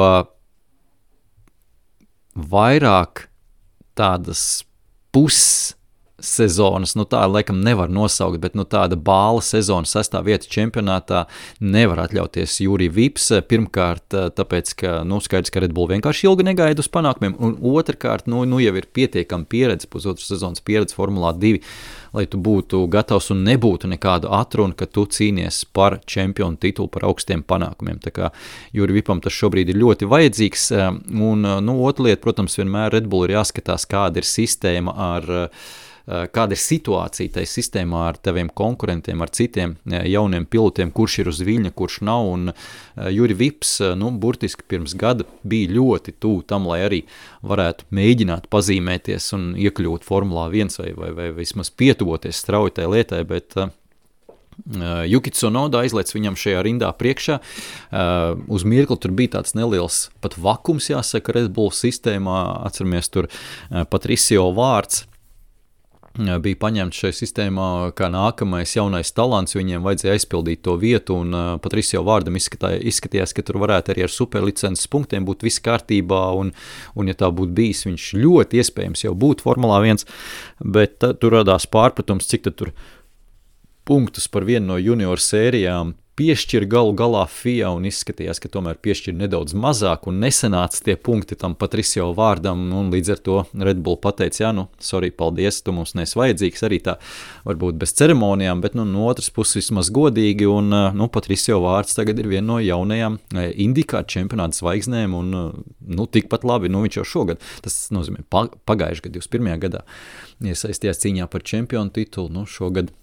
vairāk tādas pussezonas, tā laikam nevar nosaukt, bet tāda bāla sezona 6. vieta čempionātā nevar atļauties Juri Vips. Pirmkārt, tāpēc, ka, skaidrs, ka Red Bull vienkārši ilgi negaida uz panākumiem, un otrkārt, jau ir pietiekama pieredze, pusotras sezonas pieredze Formulā 2, lai tu būtu gatavs un nebūtu nekādu atrunu, ka tu cīnies par čempionu titulu, par augstiem panākumiem. Tā kā Juri Vipam tas šobrīd ir ļoti vajadzīgs, un otra lieta, protams, vienmēr Red Bull ir jāskatās, kāda ir sistēma kāda ir situācija tai sistēmā ar taviem konkurentiem, ar citiem jauniem pilotiem, kurš ir uz viļņa, kurš nav, un Juri Vips, burtiski pirms gada bija ļoti tuvu tam, lai arī varētu mēģināt pazīmēties un iekļūt Formulā 1 vai vismaz pietuvoties strauji tai lietai, bet Yuki Tsunoda aizlēc viņam šajā rindā priekšā. Uz mirkli tur bija tāds neliels pat vakums, jāsaka, Red Bull sistēmā. Atceramies, tur Patricio vārds bija paņemts šajā sistēmā kā nākamais jaunais talants, viņiem vajadzēja aizpildīt to vietu, un Patricio vārdam izskatījās, ka tur varētu arī ar superlicences punktiem būt viss kārtībā, un ja tā būtu bijis, viņš ļoti iespējams jau būtu Formulā 1, bet tur radās pārpratums, cik tad tur punktus par vienu no junior sērijām piešķir galu galā FIA, un izskatījās, ka tomēr piešķir nedaudz mazāk, un nesanāca tie punkti tam Patricio vārdam, un līdz ar to Red Bull pateica, sorry, paldies, tu mums nes vajadzīgs, arī tā varbūt bez ceremonijām, bet no otras puses vismaz godīgi, un Patricio vārds tagad ir viena no jaunajām IndyCar čempionāta zvaigznēm, un tikpat labi, viņš jau šogad, tas nozīmē pagājuši gadu, 21. gadā iesaistījās cīņā par čempionu titulu, šogad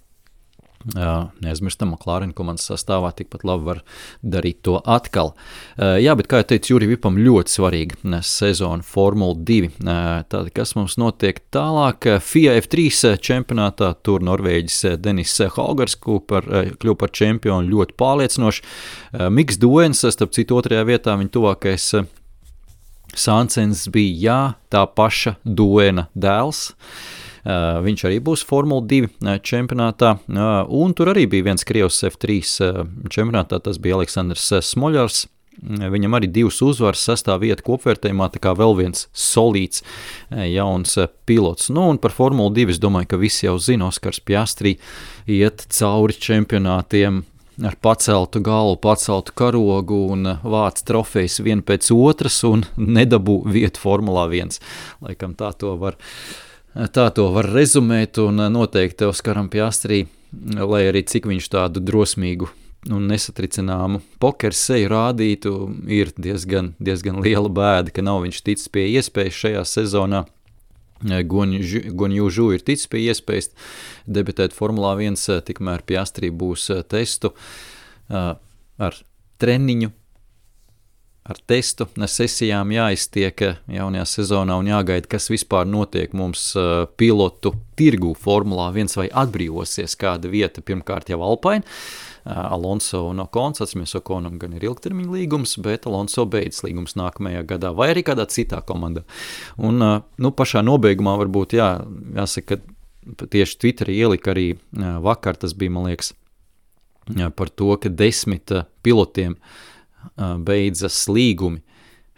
neaizmirstam, McLaren komandas sastāvā tikpat labi var darīt to atkal. Jā, bet kā jau teicu, Juri Vipam ļoti svarīga sezona Formula 2. Tātad, kas mums notiek tālāk? FIA F3 čempionātā tur Norvēģis Denis Haugaers kļuva par čempionu ļoti pārliecinoši. Miks Duens, starp citu, 2. vietā viņa tuvākais Sancens bija, tā paša Duena dēls. Viņš arī būs Formula 2 čempionātā, un tur arī bija viens Krievs F3 čempionātā, tas bija Aleksandrs Smoļars. Viņam arī 2 uzvaras, 6. vieta kopvērtējumā, tā kā vēl viens solīts jauns pilots. Un par Formulu 2 es domāju, ka visi jau zina, Oskars Piastri iet cauri čempionātiem ar paceltu galvu, paceltu karogu un vāc trofejas vien pēc otras un nedabū vietu Formulā 1. Laikam tā to var rezumēt, un noteikti Oskaram Piastri, lai arī cik viņš tādu drosmīgu un nesatricināmu pokeru seju rādītu, ir diezgan liela bēda, ka nav viņš ticis pie iespējas šajā sezonā. Guanyu Zhou ir ticis pie iespējas debitēt Formulā 1, tikmēr Piastri būs testu ar treniņu, ar testu sesijām jāiztiek jaunajā sezonā un jāgaida, kas vispār notiek mums pilotu tirgu Formulā 1 vai atbrīvosies kāda vieta, pirmkārt jau Alpine. Alonso un Ocons, atceramies, Oconam gan ir ilgtermiņa līgums, bet Alonso beidz līgums nākamajā gadā vai arī kādā citā komandā. Un pašā nobeigumā varbūt jāsaka, ka tieši Twitterī ielika arī vakar, tas bija, man liekas, par to, ka 10 pilotiem beidzas līgumi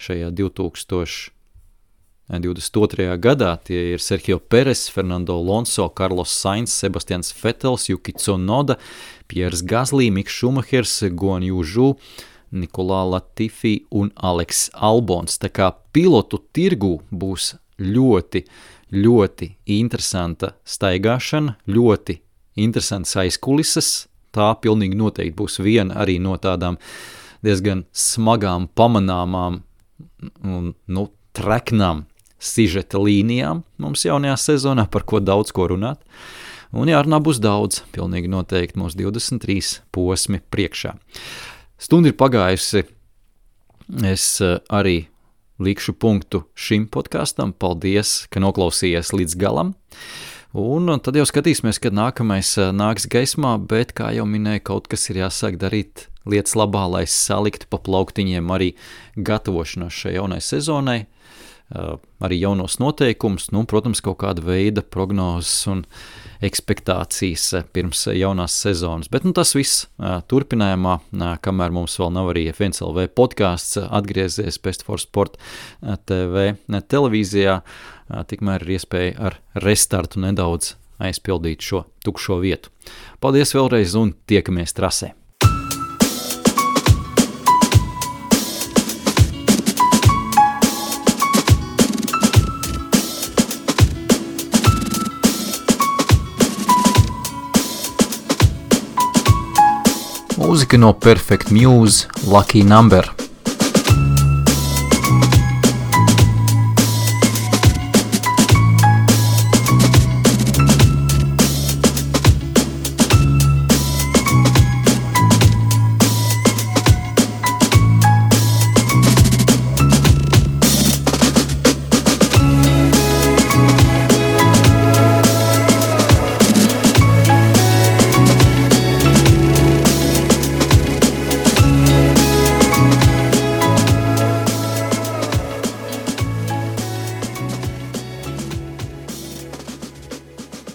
šajā 2022. gadā. Tie ir Sergio Perez, Fernando Alonso, Carlos Sainz, Sebastians Vettels, Yuki Tsunoda, Piers Gasly, Miks Šumahers, Guanyu Zhou, Nikolā Latifi un Alex Albons. Tā kā pilotu tirgu būs ļoti, ļoti interesanta staigāšana, ļoti interesants aizkulises. Tā pilnīgi noteikti būs viena arī no tādām diezgan smagām, pamanāmām un treknām sižeta līnijām mums jaunajā sezonā, par ko daudz ko runāt. Un jārunā būs daudz, pilnīgi noteikti mūsu 23 posmi priekšā. Stunda ir pagājusi, es arī likšu punktu šim podkastam. Paldies, ka noklausījies līdz galam. Un tad jau skatīsimies, kad nākamais nāks gaismā, bet, kā jau minēju, kaut kas ir jāsāk darīt lietas labā, lai saliktu pa plauktiņiem arī gatavošanos šai jaunai sezonai, arī jaunos noteikumus, protams, kaut kāda veida prognozes un ekspektācijas pirms jaunās sezonas. Bet tas viss turpinājumā, kamēr mums vēl nav arī F1LV podcasts atgriezies Best for Sport TV televīzijā, tikmēr ir iespēja ar restartu nedaudz aizpildīt šo tukšo vietu. Paldies vēlreiz un tiekamies trasē! Mūzika no Perfect Muse, Lucky Number.